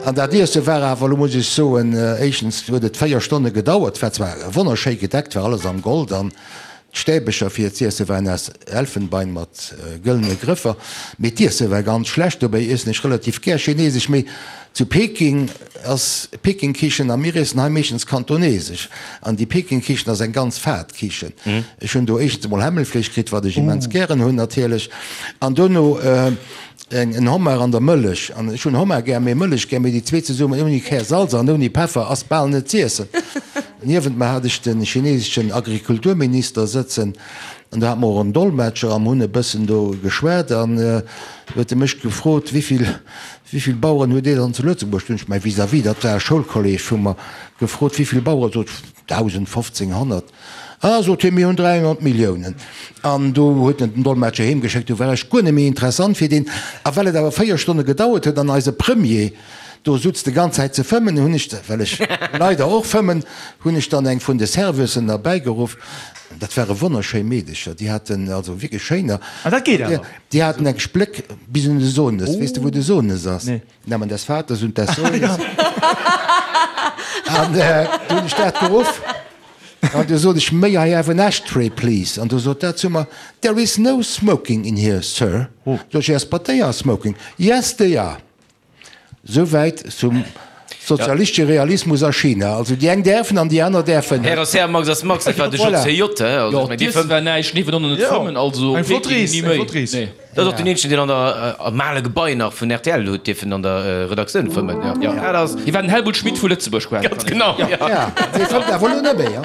An dat Iesse war awer, elo muss ech soen, éischtens huet et 4 Stonne gedauert, war zwar wonnerschéi gedeckt, war alles am Gold an D'Stäbecher fir z'iesse waren aus Elfenbein mat gëllene Grëffer, mee d'Iesse war ganz schlecht. Dobäi iessen ech relativ gär chinesesch, mee zu Peking ass Peking-Kichen a mir iessen hei meeschtens kantonesesch. An déi Peking-Kichen ass eng ganz fad Kichen. Ech hunn do éischtens emol Hämmelfleesch kritt, wat ech immens gären hunn natierlech, an dono en Homard an der Mëllech. An ech hunn Homard gär, mee Mëllech gär, mee déi zwee zesummen ouni Kär Salz an ouni Peffer ass bal net z'iessen. Niewent mer hat ech de chineseschen Agrikulturminister sëtzen an do hate mer och en Dolmetscher a mer hunn e bëssen do geschwat an huet e mech gefrot, Wéivill, wéivill Baueren huet Dir dann zu Lëtzebuerg? Du hunn ech mäi Vis-à-vis, dat war e Schoulkolleg vu mer, gefrot, Wéivill Baueren? Sot, 1.000, 1.500. Ah, sot hien, mir hunn 300 Milliounen. An do huet en den Dolmetscher heem geschéckt, du war ech guer net méi interessant fir deen. A well et awer 4 Stonne gedauert huet an eise Premier do sutz de ganz Zäit ze fëmmen, hunn ech, well ech leider och fëmmen, hunn ech dann eng vun de Serveusen erbäigeruff. Dat ware wonnerschéi Meedecher, déi haten, also wierklech schéiner. Ah, dat geet awer. Déi haten eng Spléck bis un de Sohnes. Weess de, wou de Sohnes ass? Nee. Namen des Vaters und des Sohnes. An du hunn ech dat geruff an du sot ech, May I have an ashtray, please? An du sot dat zu mer, There is no smoking in here, sir. Sot ech, Yes, but they are smoking. Yes, they are. Souwäit zum sozialistesche Realismus a China. Also déi eng däerfen an déi aner däerfen net. Här ass Här, Max ass Max, dat war de JCJ, he? Also ech meng, dee fëmmt. War näischt, nee, wann net fëmmen, also Eng flott Rees, ni eng méi. flott Rees. Nee. Dat ass och den eenzegen, deen an der, am ale Gebai nach vun rtl huet dierfen an der Redaktioun fëmmen. Jo, dat ass. Hie war den Helmut Schmidt vu Lëtzebuerg quasi. Ganz genau, jo. Ja, dee fëmmt awer elo net méi, jo.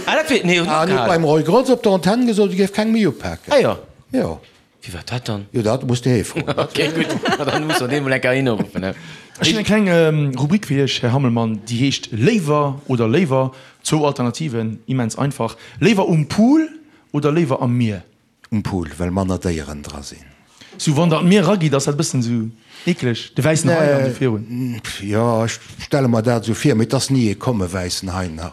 Ah, dat wéi, nee, huet Ah, en huet opgehalen. beim Roy Grotz op der Antenn gesot, e géif keng méi upaken. Ah jo. Jo. Wie war dat dann? Jo, dat muss de hie froen. Ok, gutt, ma dann muss mer dee mol eng Kéier hinuruffen, he. Ech hunn eng kleng Rubrik fir Iech, Här Hammelmann, déi heescht Léiwer oder léiwer. Zwou Alternativen, immens einfach. Léiwer um Pool oder léiwer am Mier? Um Pool, well manner Déieren dra sinn. Sou wann der an d'Mier eragitt, ass dat e bëssen sou eekleg, de wäissen Hai an sou virun. Jo, ech stelle mer dat esou vir, mee et ass ni ee komm, e wäissen Hai nach.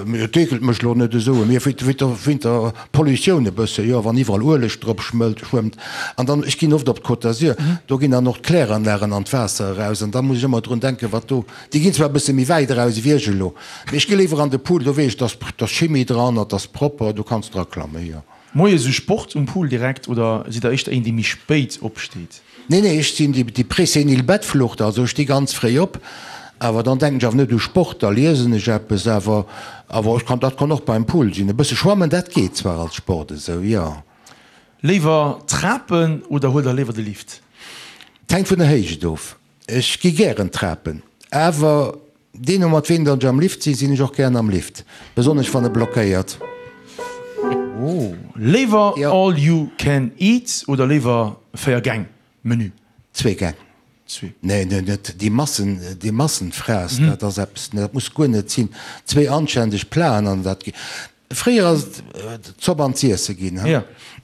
Mee et eekelt mech lo net esou. Mee wéint der Pollutioun e bësse, jo, wann iwwerall Ueleg drop schmëllt, schwëmmt. An dann, ech ginn oft op d'Côte d'Azur, do ginn dann och d'Kläranlagen an d'Waasser eraus an da muss ech ëmmer drun denken, wat do, déi ginn zwar e bësse méi wäit eraus ewéi ech elo, mee ech gi léiwer an de Pool, do weess ech, dass ass Chimie dran, et ass propper, do kanns draklammen, jo. Moies u Sport um Pool direkt oder sidd der éischter een dee méi spéit opsteet? Nee nee, ech sinn déi présenil Bettflucht, also ech sti ganz fréi op, awer dann denken ech awer net u Sport, da liesen ech eppes, awer awer ech kann, dat kann och beim Pool sinn, e bësse schwammen, dat geet zwar als Sport esou, jo. Léiwer Trapen oder huelt der léiwer de Lift? Et hänkt vun der Héicht of, ech gi gären Trapen, awer Deemno mat ween datt ech am Lift sinn, sinn ech och gären am Lift, besonnesch wann e blockéiert. Léiwer all you can eat oder léiwer 4 Gäng Menü? Zwee Gäng. Zwee. Nee, nee, net déi Massen, déi Massenfraess, dat ass eppes, dat muss guer net sinn. Zwee anständeg Platen an dat. Fréier ass et d'Zopp an z'iesse ginn, he?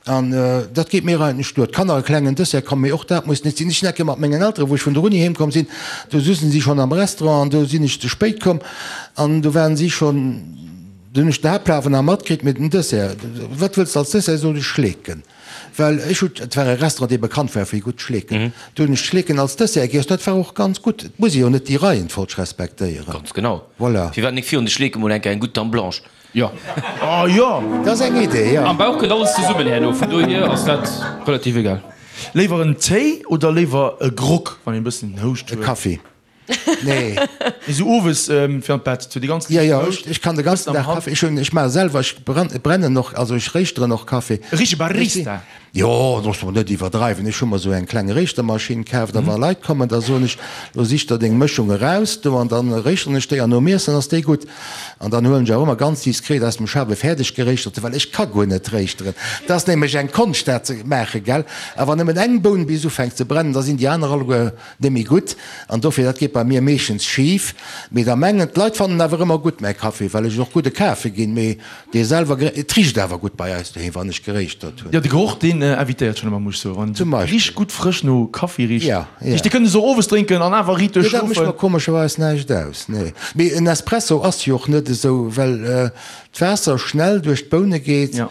An dat geet mir eigentlech duer. D'Kanner e klengen Dessert, komm, mee och dat muss net sinn. Ech sinn eng Kéier mat mengen Elteren, wou ech vun der Uni heem komm sinn, do sussen si schonn am Restaurant an do sinn ech ze spéit komm an do waren si schonn, do hunn ech den Haaptplat awer nach matkritt, mee den Dessert, wat wëlls de als Dessert? Sot ech, Schleeken. Well ech hunn, et war e Restaurant, dee bekannt war fir gutt Schleeken, do hunn ech d'Schleeken als Dessert giess, dat war och ganz gutt. Et muss ee jo net déi Reihenfolg respektéieren. Ganz genau. Voilà. Firwat nik virun de Schleeke mol eng Kéier eng gutt Dame Blanche? Jo. Oh jo! Dat ass eng Idee, jo. Am Bauch kënnt alles zesummen herno, vun dohier ass dat relativ egal. Léiwer en Téi oder léiwer e Grog, wann een e bëssen Houscht E huet? Kaffi. Nee. Nee, sou owes fir an d'Bett, sou déi ganz Jo, liicht jo, Houscht. ech kann de ganzen Dag Kaffi. Ech hunn, ech maache selwer, ech brennen och, also ech réischteren och Kaffi. E richtege Barista. Jo, looss mol net iwwerdreiwen. Ech hu mer esou eng kleng Réischtermaschinn kaaft a wa Leit kommen, da soen ech, Lo sich der deng Mëschung eraus do an dann réischteren ech déi an nom Iessen ass déi gutt. An dann huelen ech awer ëmmer ganz diskret aus dem Schaf e fäerdeg geréischterte, well ech ka guer net réischteren. Dat ass nämlech eng Konscht dat ze maachen, gell. A wann nëmmen eng Boun bis ufänkt ze brennen, da sinn déi aner alleguer net méi gutt. An dofir, dat geet bei mir meeschtens schif. Mee da mengen d'Leit fannen awer ëmmer gutt mäi Kaffi, well ech et och gutt e kafe ginn. Mee Dee selwer geré, et richt awer gutt bei eis doheem, wann ech geréischtert hunn. Jo, de Geroch, deen invitéiert schonn ëmmer, muss ech soen. Wann Zum et Beispill. richt gutt frësch no Kaffi richt. Ja, ja. Dee kënnt s och owes drénken an awer riit Nee, dat mécht mer duerchschlofen. komescherweis näischt aus, nee. Mee en Espresso ass jo och net esou, well d'Waasser schnell duerch d'Boune geet, Ja.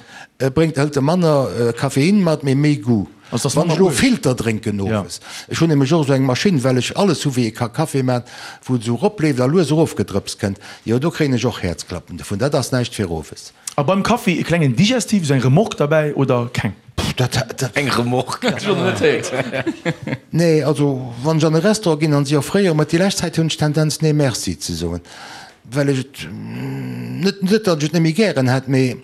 bréngt, hëlt e manner Koffein mat, mee méi Goût. Also, dass Wann manner ech elo Ueleg. Filter drénken Ja. owes, ech hunn nämlech och esou eng Maschinn, well ech alles hu wéi ee ka Kaffi man, wou et esou eropleeft a lues erofgedrëpst kënnt, jo do kréien ech och Häerzklappen dovun. Dat ass näischt fir owes. A beim Kaffi e klengen Digestif, esou eng Remorque derbäi oder keng? Pff, dat, dat. Eng Remorque? Hat ech och nach net héiert. Nee, also wann ech an e Restaurant ginn an si offréiere mer, déi lescht Zäit hunn ech d'Tendenz nee merci ze soen, well ech et net, net datt ech et net méi gären hätt, mee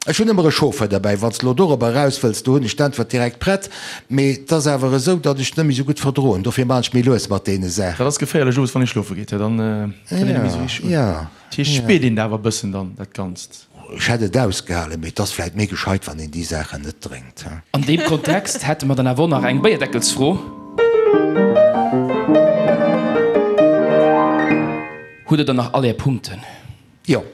Ech hunn ëmmer e Chauffeur derbäi. Wann s de elo dorobber eraus wëlls, do hunn ech d'Äntwert direkt prett. Mee et ass awer esou, datt ech et net méi esou gutt verdroen. Dofir maachen ech méi lues mat deene Saachen. Dat ass geféierlech owes, wann ee schlofe geet, dann kënnt een net méi esou richteg un. Jo, Dat heescht, jo. spiert een dat awer e bëssen dann, dat Ganzt? Ech hätt et ausgehalen, mee et ass vläit méi gescheit, wann een déi Saachen net drénkt. An deem Kontext hätte mer dann awer och nach eng Béierdeckelsfro. Hutt Der dann nach all Är Punkten? Jo.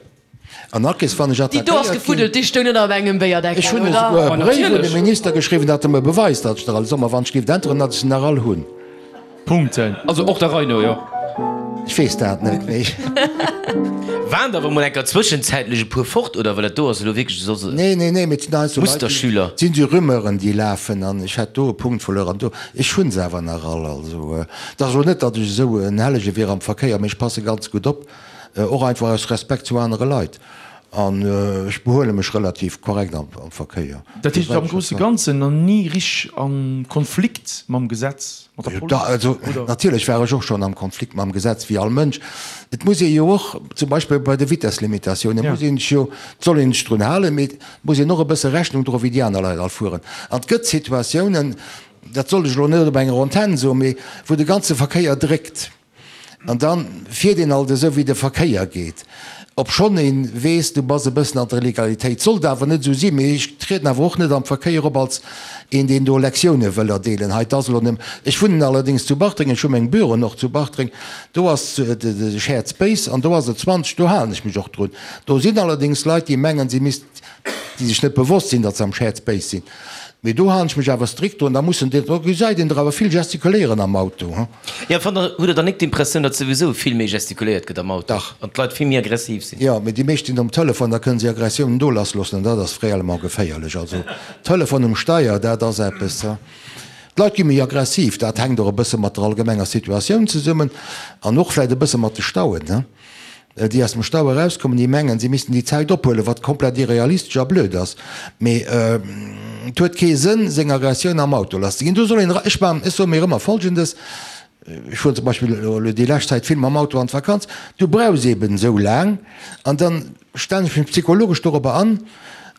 An Akes, wann ech Déi do ass attackéiert ginn. gefuddelt, déi stoung net op engem Béierdeckel, Ech hunn oder? esouguer e Ma Bréif un de natierlech. Minister geschriwwen, datt e mer beweist, datt ech der all Sommer, wann ech géif äntweren, datt ech se nach all hunn. Punkten. Also och der Rei no, jo. Ech weess dat net méi. Waren der awer mol enker zwëschenzäitlech e puer fort, oder? Well dat do ass elo wierklech soss e Nee, nee, nee, mee et sinn heiansdo Leit, déi, Musterschüler. et sinn esou Rumeuren, déi lafen, an ech hätt do e Punkt verluer an do. Ech hunn se awer nach all. Also, et ass elo net, datt ech esou en Hellege wier am Verkéier, mee ech passe ganz gutt op. Och einfach aus Respekt zu anere Leit. An ech behuele mech relativ korrekt am Verkéier. Dat heescht, am grousse Ganzen nach ni richteg a Konflikt mam Gesetz, mat der Police, Also oder? natierlech war ech och schonn am Konflikt mam Gesetz, wéi all Mënsch. Et muss ee jo och, zum Beispill bei de Vitesslimitatiounen, muss een sech jo, et soll een sech drun halen, mee et muss een och e bësse Rechnung droen, wéi déi aner Leit all fueren. An et gëtt Situatiounen, dat sollt ech elo net op enger Antenn soen, mee wou de ganze Verkéier dréckt. An dann fiert een alt esou wéi de Verkéier geet, obschonn een weess, du bass e bëssen an der Legalitéit. Sollt awer net esou sinn, mee ech trieden awer och net am Verkéier op als een deen do Lektioune wëll erdeelen. Hei, 't ass elo nëmm, ech wunnen allerdéngs zu Bartreng, ech hu meng Büroen och zu Bartreng, do ass de Shared Space an do ass et 20, do halen ech mech och drun. Do sinn allerdéngs Leit déi mengen si misst, déi sech net bewosst sinn, datt se am Shared Space sinn. Mee do halen ech mech awer strikt drun. Da mussen déi, do gesäit een der awer vill gestikuléieren am Auto, he. Jo, fannt der, hutt der dann nik d'Impressioun, datt souwisou vill méi gestikuléiert gëtt am Auto? Dach. An d'Leit vill méi aggressiv sinn? Jo, mee déi meescht sinn um Telefon, da kënnen se Aggressiounen do lassloossen an dat ass réellement geféierlech. Also Telefon um Steier, dat ass eppes, he. D'Leit gi méi aggressiv, dat hänkt och e bësse mat der allgemenger Situatioun zesummen an och vläicht e bësse mat de Stauen, he. Déi aus dem Stau erauskommen, déi mengen, si missten déi Zäit ophuelen, wat komplett irrealistesch a blöd ass. Mee et huet kee Sënn, seng Aggressioun am Auto lasszeginn. Do soll een, ech maachen, ech soe mir ëmmer Folgendes, ech fueren zum Beispill elo déi lescht Zäit vill mam Auto an d'Vakanz, du brauchs eeben esou laang an da stellen ech mech psychologesch dorobber an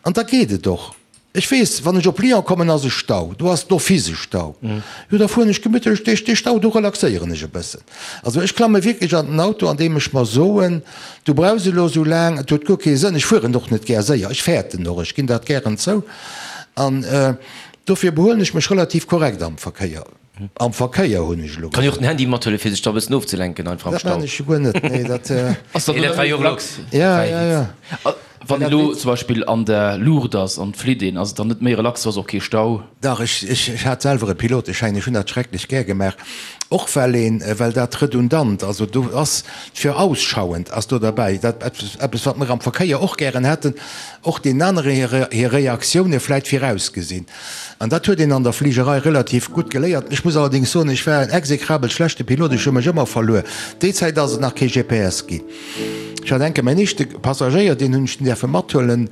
an da geet et och. Ech weess, wann ech op Lyon kommen, ass e Stau, do ass d'office e Stau. Jo, da fueren ech gemittlech duerch dee Stau, do relaxéieren ech e bëssen. Also ech klamme wierklech an den Auto, an deem ech mer soen, du brauchs elo esou laang, et huet guer kee Sënn. Ech fueren och net gär séier, ech fäerten och, ech ginn dat gären zou. An dofir behuelen ech mech relativ korrekt am Verkéier. Am Verkéier hunn ech elo Kann jo och den Handy mathuelen fir sech da e bëssen ofzelenken einfach am Dat Stau. maan ech jo guer net, nee dat. Ass dann Nee, dat war jo och relax. Ja, ja, ja. Wann een elo zum Beispill an der Luucht ass an flitt een, ass et dann net méi relax, do ass och kee Stau? Dach, ech, ech, ech hat selwer e Piloteschäin, ech hunn dat schrecklech gär gemaach, och well een, well dat redundant, also do ass virausschauend ass do derbäi, dat eppes, eppes wat mer am Verkéier och gären hätten, och deenen anere hir, hir Reaktioune vläit virausgesinn. An dat huet een an der Fligerei relativ gutt geléiert. Ech muss allerdéngs soen, ech war en exekrabel schlechte Pilot, ech hu mech ëmmer verluer. Déi Zäit ass et nach kee GPS ginn. Ech hat enke mäin éischte Passagéier, deen hunn ech dunn däerfe mathuelen.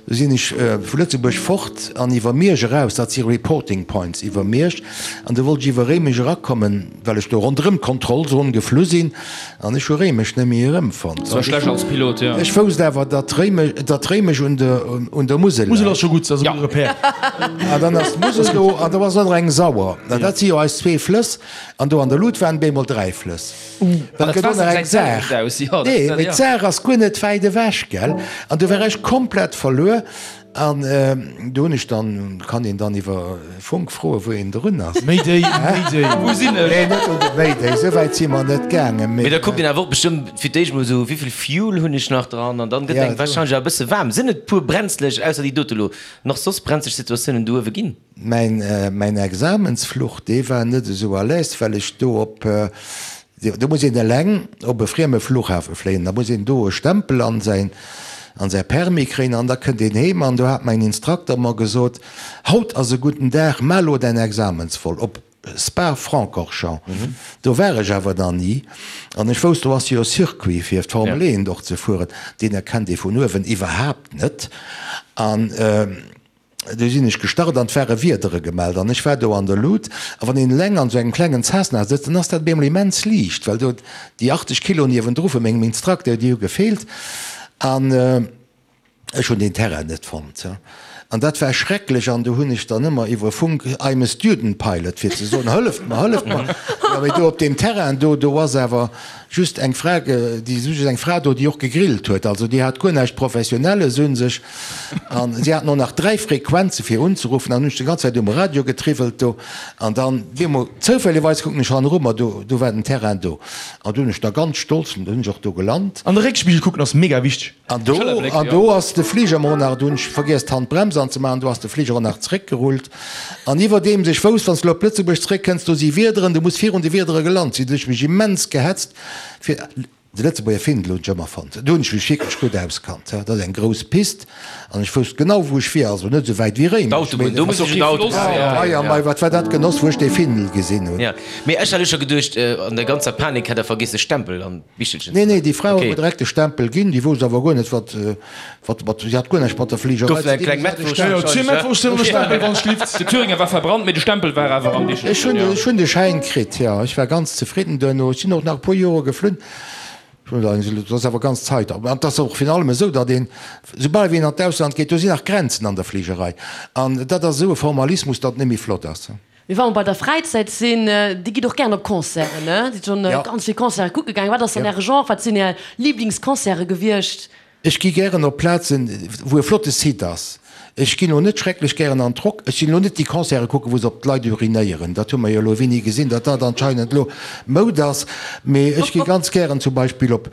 Du sinn ech vu Lëtzebuerg fort an iwwer Miersch eraus, dat si Reporting Points iwwer Miersch, an du wollt ech iwwer Réimech erakommen, well ech do ronderëm d'Kontrollzon geflu sinn. An ech hu Réimech net méi erëmfonnt. Dat war schlecht als Pilot, jo. Ech wousst awer, datt Réimech, datt Réimech un der, un der Musel Musel ass scho gutt, dat ass e gudde Repère. An dann ass d'Musel do an do ass och nach eng Sauer. An dat si jo eis zwee Flëss. An do an der Lut waren bemol 3 Flëss. Well et gëtt och nach eng Saar. Nee, mee d'Saar ass guer net wäit ewech, gell? An do war ech komplett verluer. An do hunn ech dann, kann een dann iwwer Funk froen, wou een drun ass. Mayday, Mayday, wou sinn ech? Nee, net un de Mayday, esou wäit si mer net gaangen. Mee da kuckt een awer och bestëmmt fir d'éischt mol esou, wéivill Fuel hunn ech nach dran? An dann gëtt engem warscheinlech awer e bësse waarm. Sinn et puer brenzlech, ausser déi dote lo, nach soss brenzlech Situatiounen do uewe ginn? Mäin, mäin Examensfluch, dee war net esou à l'aise, well ech do op, Do muss een eleng op e frieme Flughafe fléien, da muss een do e Stempel an säin, an säi Permis kréien an da kënnt een heem. An do hat mäin Instrukter mer gesot, Haut ass e gudden Dag, maach elo däin Examensvol op Spa-Francorchamps. Do war ech awer nach ni an ech wousst, do ass jo e Circuit fir d'Formel 1 och ze fueren, deen erkennt ee vun uewen iwwerhaapt net. An. Du sinn ech gestart an 't ware Wiedere gemellt an ech war do an der Lut. A wann een eleng an esou engem klengen Cessna sëtzt, dann ass dat op eemol immens liicht, well do déi 80 Kilo niewendru vu mengem Instructeur, déi hu gefeelt. An ech hunn deen Terrain net fonnt. An dat war schrecklech. An du hunn ech dann ëmmer iwwer Funk, I'm a student pilot, fir ze soen, hëlleft mer, hëlleft mer. Jo, mee do op deem Terrain do, do ass awer just eng Fra, déi, just eng Fra do, déi och gegrillt huet. Also déi hat guer näischt Professionelles un sech. An si haten och nach 3 Frequenze fir unzeruffen an hunn ech déi ganz Zäit um Radio getriwwelt do. An dann bemol zoufällegerweis kucken ech hanneru, ma do, do war den Terrain do. An do hunn ech da ganz stolz, do hunn ech och do gelant. An de Réckspigel kucken ass mega wichteg. An do, an do ass de Fliger mer och nach, do hunn ech vergiess d'Handbrems anzemaachen, do ass de Fliger och nach zeréckgerullt. An iwwerdeems ech wousst, wann s de elo op Lëtzebuerg zeréckkënns, do si Wiederen, du muss virun de Wiedere gelant sinn, do hunn ech mech immens gehetzt fir. De Lëtzebuerger Findel hunn ech ëmmer fonnt. Do hunn ech mech wierklech gutt auskannt. Dat ass eng grouss Pist an ech wousst genau wou ech wier, also net esou wäit wéi Réimech. D'Autobunn, do muss ech un d'Autobunn. Mei a mei, wat war dat Genoss wou ech dee Findel gesinn hunn. Jo, mee ech hat elo scho geduecht, an der ganzer Panik hätt der vergiess de Stempel an d'Bichelchen ze Nee, nee, déi Fra huet mer direkt de Stempel ginn. Déi wousst awer guer net wat, wat mat, si hat guer näischt mat der Fligerei Gouf ze eng dinn. kleng Si hat de Mettwurscht Stempel. Jo, zwee Mettwurschten an e Stempel, wann ech lift. De Thüringer war verbrannt, mee de Stempel war awer am Bichelchen. Ech hunn, ech hunn de Schäin kritt, jo. Ech war ganz zefridden duerno. Ech sinn och nach e puer Jore geflunn. Dat ass awer ganz Zait. An et ass och virun allem esou, datt een, soubal wéi een an d'Ausland geet, do sinn nach Grenzen an der Fligerei. An dat ass esou e Formalismus, datt et net méi flott ass. Mee wa mer bei der Fräizäit sinn, Dir gitt och gären op Concerten, ne? Sidd schonn ganz vill Concerte kucke gaangen. Wat ass dann Äre Genre? Wat sinn Är Liblingsconcerte gewiescht? Ech gi gären op Plazen, wou e flotte Site ass. Ech ginn elo net schrecklech gären an d'Rock. Ech ginn elo net déi Concerte kucken, wou se op d'Leit urinéieren. Dat hu mer jo elo wéini gesinn, datt dat anscheinend elo Moud ass. Mee ech gi ganz gären zum Beispill op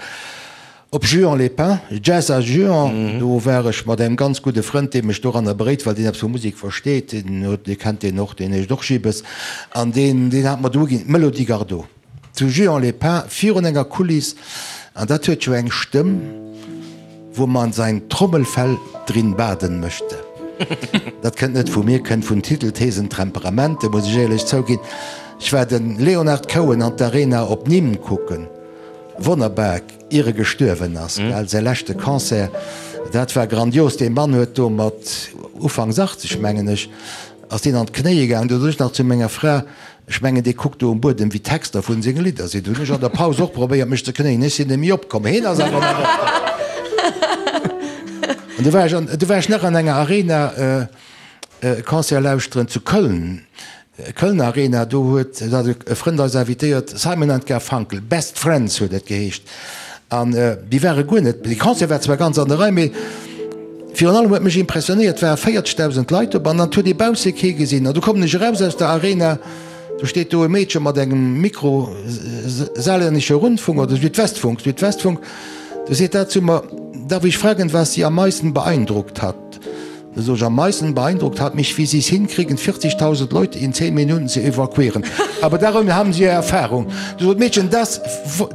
op Juan-les-Pins, Jazz à Juan. Do war ech mat engem ganz gudde Frënd, dee mech doranner beréit, well deen eppes vu Musek versteet. Deen huet, Dir kennt deen och, deen heescht och Gibes. An deen, deen hat mer do uginn, d'Melody Gardot. Zu Juan-les-Pins virun enger Kuliss, an dat huet jo eng Stëmm, wo man sein Trommelfell drin baden möchte. Dat kënnt net vu mir, kënnt vun Titel, Thesen, Temperamente, muss ech éierlech zouginn. Ech war de Leonard Cohen an d'Arena op Nîmes kucken, wonnerbar, ier e gestuerwen ass, gell, säi leschte Concert, dat war grandios. Dee Mann huet do mat ufanks 80, mengen ech, ass deen an d'Knéie gaangen. Do sot ech nach zu menger Fra, Ech mengen, dee kuckt do um Buedem, wéi d'Texter vun senge Lidder sinn. Hunn ech an der Paus och probéiert, mech ze knéien. Ech sinn net méi opkomm. Heen ass awer nach opkomm. An du war ech an, du war ech nach an enger Arena e Concert lauschteren zu Köln, Kölner Arena. Do huet, do hat e Frënd eis invitéiert, Simon and Garfunkel, Best Friends huet et geheescht. An déi ware guer net, dee Concert war zwar ganz an der Rei, mee virun allem huet mech impressionéiert, et ware 40.000 Leit op an et huet ee bausse kee gesinn. An du kommen ech eraus aus der Arena, do steet do e Meedche mat engem Mikro, Saarländischer Rundfunk oder Südwestfunk, Südwestfunk, du seet dat zu mer, Darf ich fragen, was Sie am meisten beeindruckt hat? Da sot ech, Am meisten beeindruckt hat mich, wie Sie es hinkriegen, 40.000 Leute in 10 Minuten zu evakuieren. Aber darin haben Sie ja Erfahrung. Du sot d'Meedchen, Das,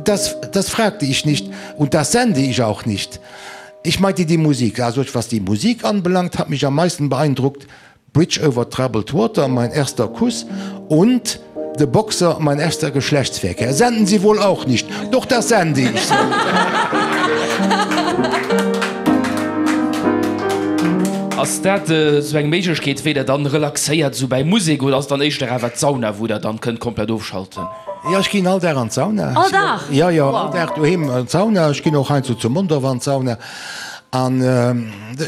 das, das fragte ich nicht und das sende ich auch nicht. Ich meinte die Musik. Da sot ech, Was die Musik anbelangt, hat mich am meisten beeindruckt Bridge over troubled water, mein erster Kuss und De Boxer, mein erster Geschlechtsverkehr senden Sie wohl auch nicht? Doch, das sende ich! Ass dat esou eng Méiglechkeet, wéi der dann relaxéiert esou bäi Musek, oder ass et dann éischter awer d'Sauna, wou der dann kënnt komplett ofschalten? Jo, ech ginn all Dag an d'Sauna. All Dag? Jo, jo, all Dag doheem an d'Sauna. Ech ginn och heiansdo zu Mondorf an d'Sauna. An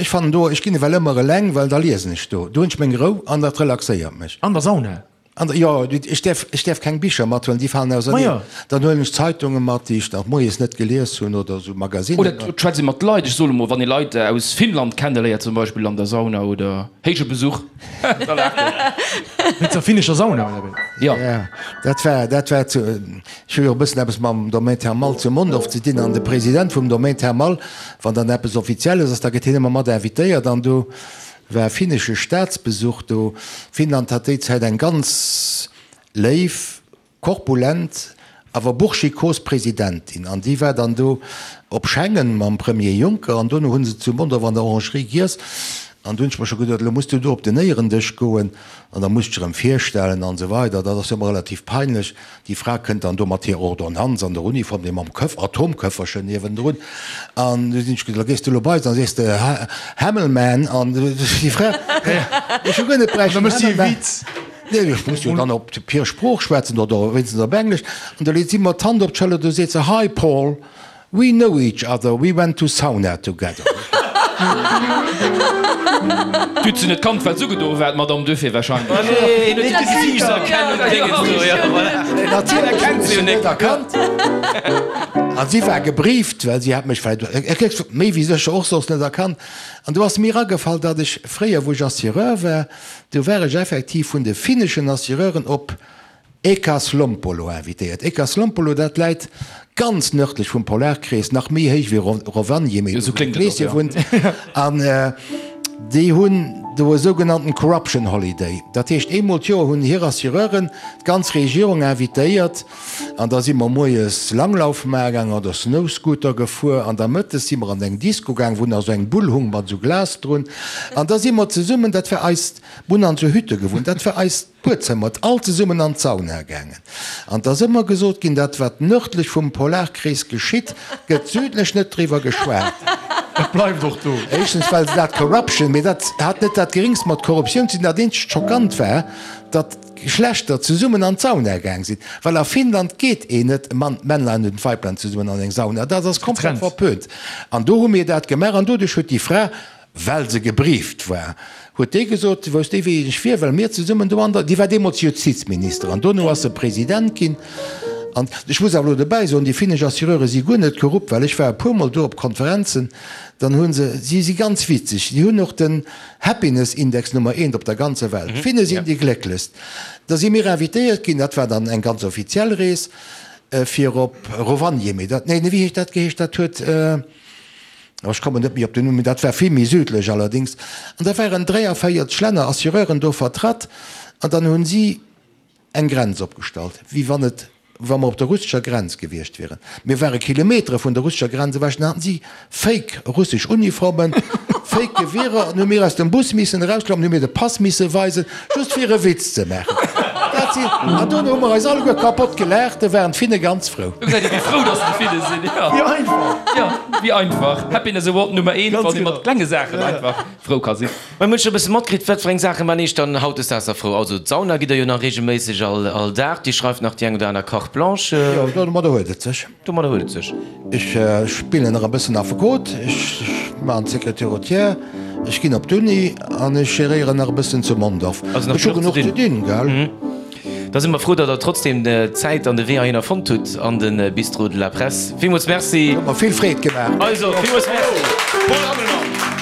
ech fannen do, ech ginn ewell ëmmer eleng, well da liesen ech do. Do hunn ech meng Rou an dat relaxéiert mech. An der Sauna? An der, jo, ech däerf, ech däerf keng Bicher mathuelen, déi falen auserneen. Majo. Dann huelen ech Zeitunge mat, déi ech nach moies net gelies hunn oder esou Magazinen. Oder et schwätzt ee mat Leit, ech soen emol, wann ee Leit aus Finnland kenneléiert zum Beispill an der Sauna oder héije Besuch, da laacht een. Wéinst der finnescher Sauna, oder wéi? Jo. Ja, dat war, dat war zu, ech hu jo e bëssen eppes mam Domaine Thermal zu Mondorf ze dinn an de President vum Domaine Thermal, wann dann eppes Offizielles ass, da gëtt hien ëmmer mat invitéiert an do War e finnesche Staatsbesuch do. Finnland hat déi Zäit eng ganz léif, korpulent, awer burschikos Presidentin an déi war dann do op Schengen mam Premier Juncker an dono hu se zu Mondorf an der Orangerie giess an du hunn ech mer scho geduet, elo muss du do op den Éierendësch goen an da muss dech erëm virstellen an esou weider. Dat ass jo ëmmer relativ peinlech. Déi Fra kënnt dann do mat hirer Ordonnanz an der Uniform, dee mam Köff, Atomköfferchen niewendrun. An du sinn ech gesot, da gees du elo bei se an sees de, Hämmelman. An déi Fra, ech hu guer net bräichten Hämmelman. Nee, ech muss jo dann op hir Sprooch schwätzen oder wéinstens op Englesch. An da leet si mer d'Hand op d'Schëller, du seet se, Hi Paul. We know each other, we went to sauna together. D'huet se net kannt, well se ugedo war, d'Madame, duerfir wahrscheinlech. Nee, huet d'Gesiichtserkennung Dingens do, jo, voilà. Natierlech huet se net erkannt. A si war gebrieft, well si hat mech vläicht méi wéi sécher och soss net erkannt. An do ass mir agefall, datt ech fréier, wou ech Assureur war, do war ech effektiv vun de finneschen Assureuren op Äkäslompolo invitéiert. Äkäslompolo, dat läit ganz nërdlech vum Polarkrees, nach méi héich wéi Rovaniemi, do wou de Kleeschen wunnt. An déi hunn do e sougenannten Corruption Holiday. Dat heescht, eemol d'Joer hunn hir Assureuren d'ganz Regierung invitéiert an da si mer moies Langlauf maache gaangen oder Snowscooter gefuer an da mëttes si mer an eng Disco gaang, wou nach esou eng Bull hung mat esou Glas drun. An da si mer zesummen, dat war eist, mir hunn an esou Hütte gewunnt, dat war eist Buedzëmmer, all zesummen an d'Sauna gaangen. An 't ass ëmmer gesot ginn, dat wat nërdlech vum Polarkrees geschitt, gëtt südlech net driwwer geschwat. Dat bleift och do. Éischtens well se dat Corruption, mee dat hat net dat geringst mat Korruptioun ze dinn. Dat eenzegt Schockant war, datt d'Geschlechter zesummen an d'Sauna gaang sinn, well a Finnland geet een net, Mann, Männlein und Weiblein zesummen an eng Sauna, dat ass komplett verpönt. An do hu mir dat gemaach an doduerch huet déi Fra. Well se gebrieft war, huet déi gesot, wousst déi wéi ech wier, well mir zesummen do an der, déi war deemools Justizminister an dono ass se President ginn. An ech muss awer elo dobäi soen, déi finnesch Assureure si guer net korrupt, well ech war e puermol do op Konferenzen, dann hu se, si si ganz witzeg, si hunn och den Happiness Index Nummer eent op der ganzer Welt, d'Finne sinn déi glécklechst. Da si mir invitéiert ginn, dat war dann eng ganz offiziell Rees, fir op Rovaniemi, dat, nee, wéi heescht dat geheescht, dat huet, Oh, ech kommen net méi op den Numm, mee dat war vill méi südlech allerdéngs. An da waren 43 Länner, Assureuren do vertratt an dann hunn si eng Grenz opgestallt, wéi wann et, wa mer op der russescher Grenz gewiescht wieren. Mir ware Kilometere vun der russescher Grenz ewech, dann haten si fake russesch Uniformen, fake Gewierer an hu mir aus dem Bus missen erausklammen, hu mir de Pass misse weisen, just fir e Witz ze maachen. Dat sinn, an dono hu mer eis alleguer kapott gelaacht, do waren d'Finne ganz frou. Do gesäit ee wéi frou dass déi Finne sinn, jo. Wéi einfach! Jo, wéi einfach. Happiness Award Nummer eent, wann ee mat klenge Saachen einfach frou ka sinn. Mä mir hunn scho e bësse matkritt, wat fir eng Saache man eech dann hautdesdaags da frou. Also d'Sauna gitt der jo nach reegelméisseg all Dag, Dir schreift nach déi eng oder aner Carte blanche. Jo, domadder huet et sech. Domadder huet et sech. Ech spillen nach e bëssen Affekot, ech maachen d'Sécurité routière, ech ginn op d'Uni an ech geréieren nach e bëssen zu Mondorf. Also nach Ech hu genuch genuch ze ze dinn, gell? Da si mer frou, datt Der trotzdem d'Zäit an de Wee heihinner fonnt hutt an de Bistrot de la Presse. Villmools Merci. Huet mer vill Freed gemaach. Also, villmools Merci, Paul Hammelmann.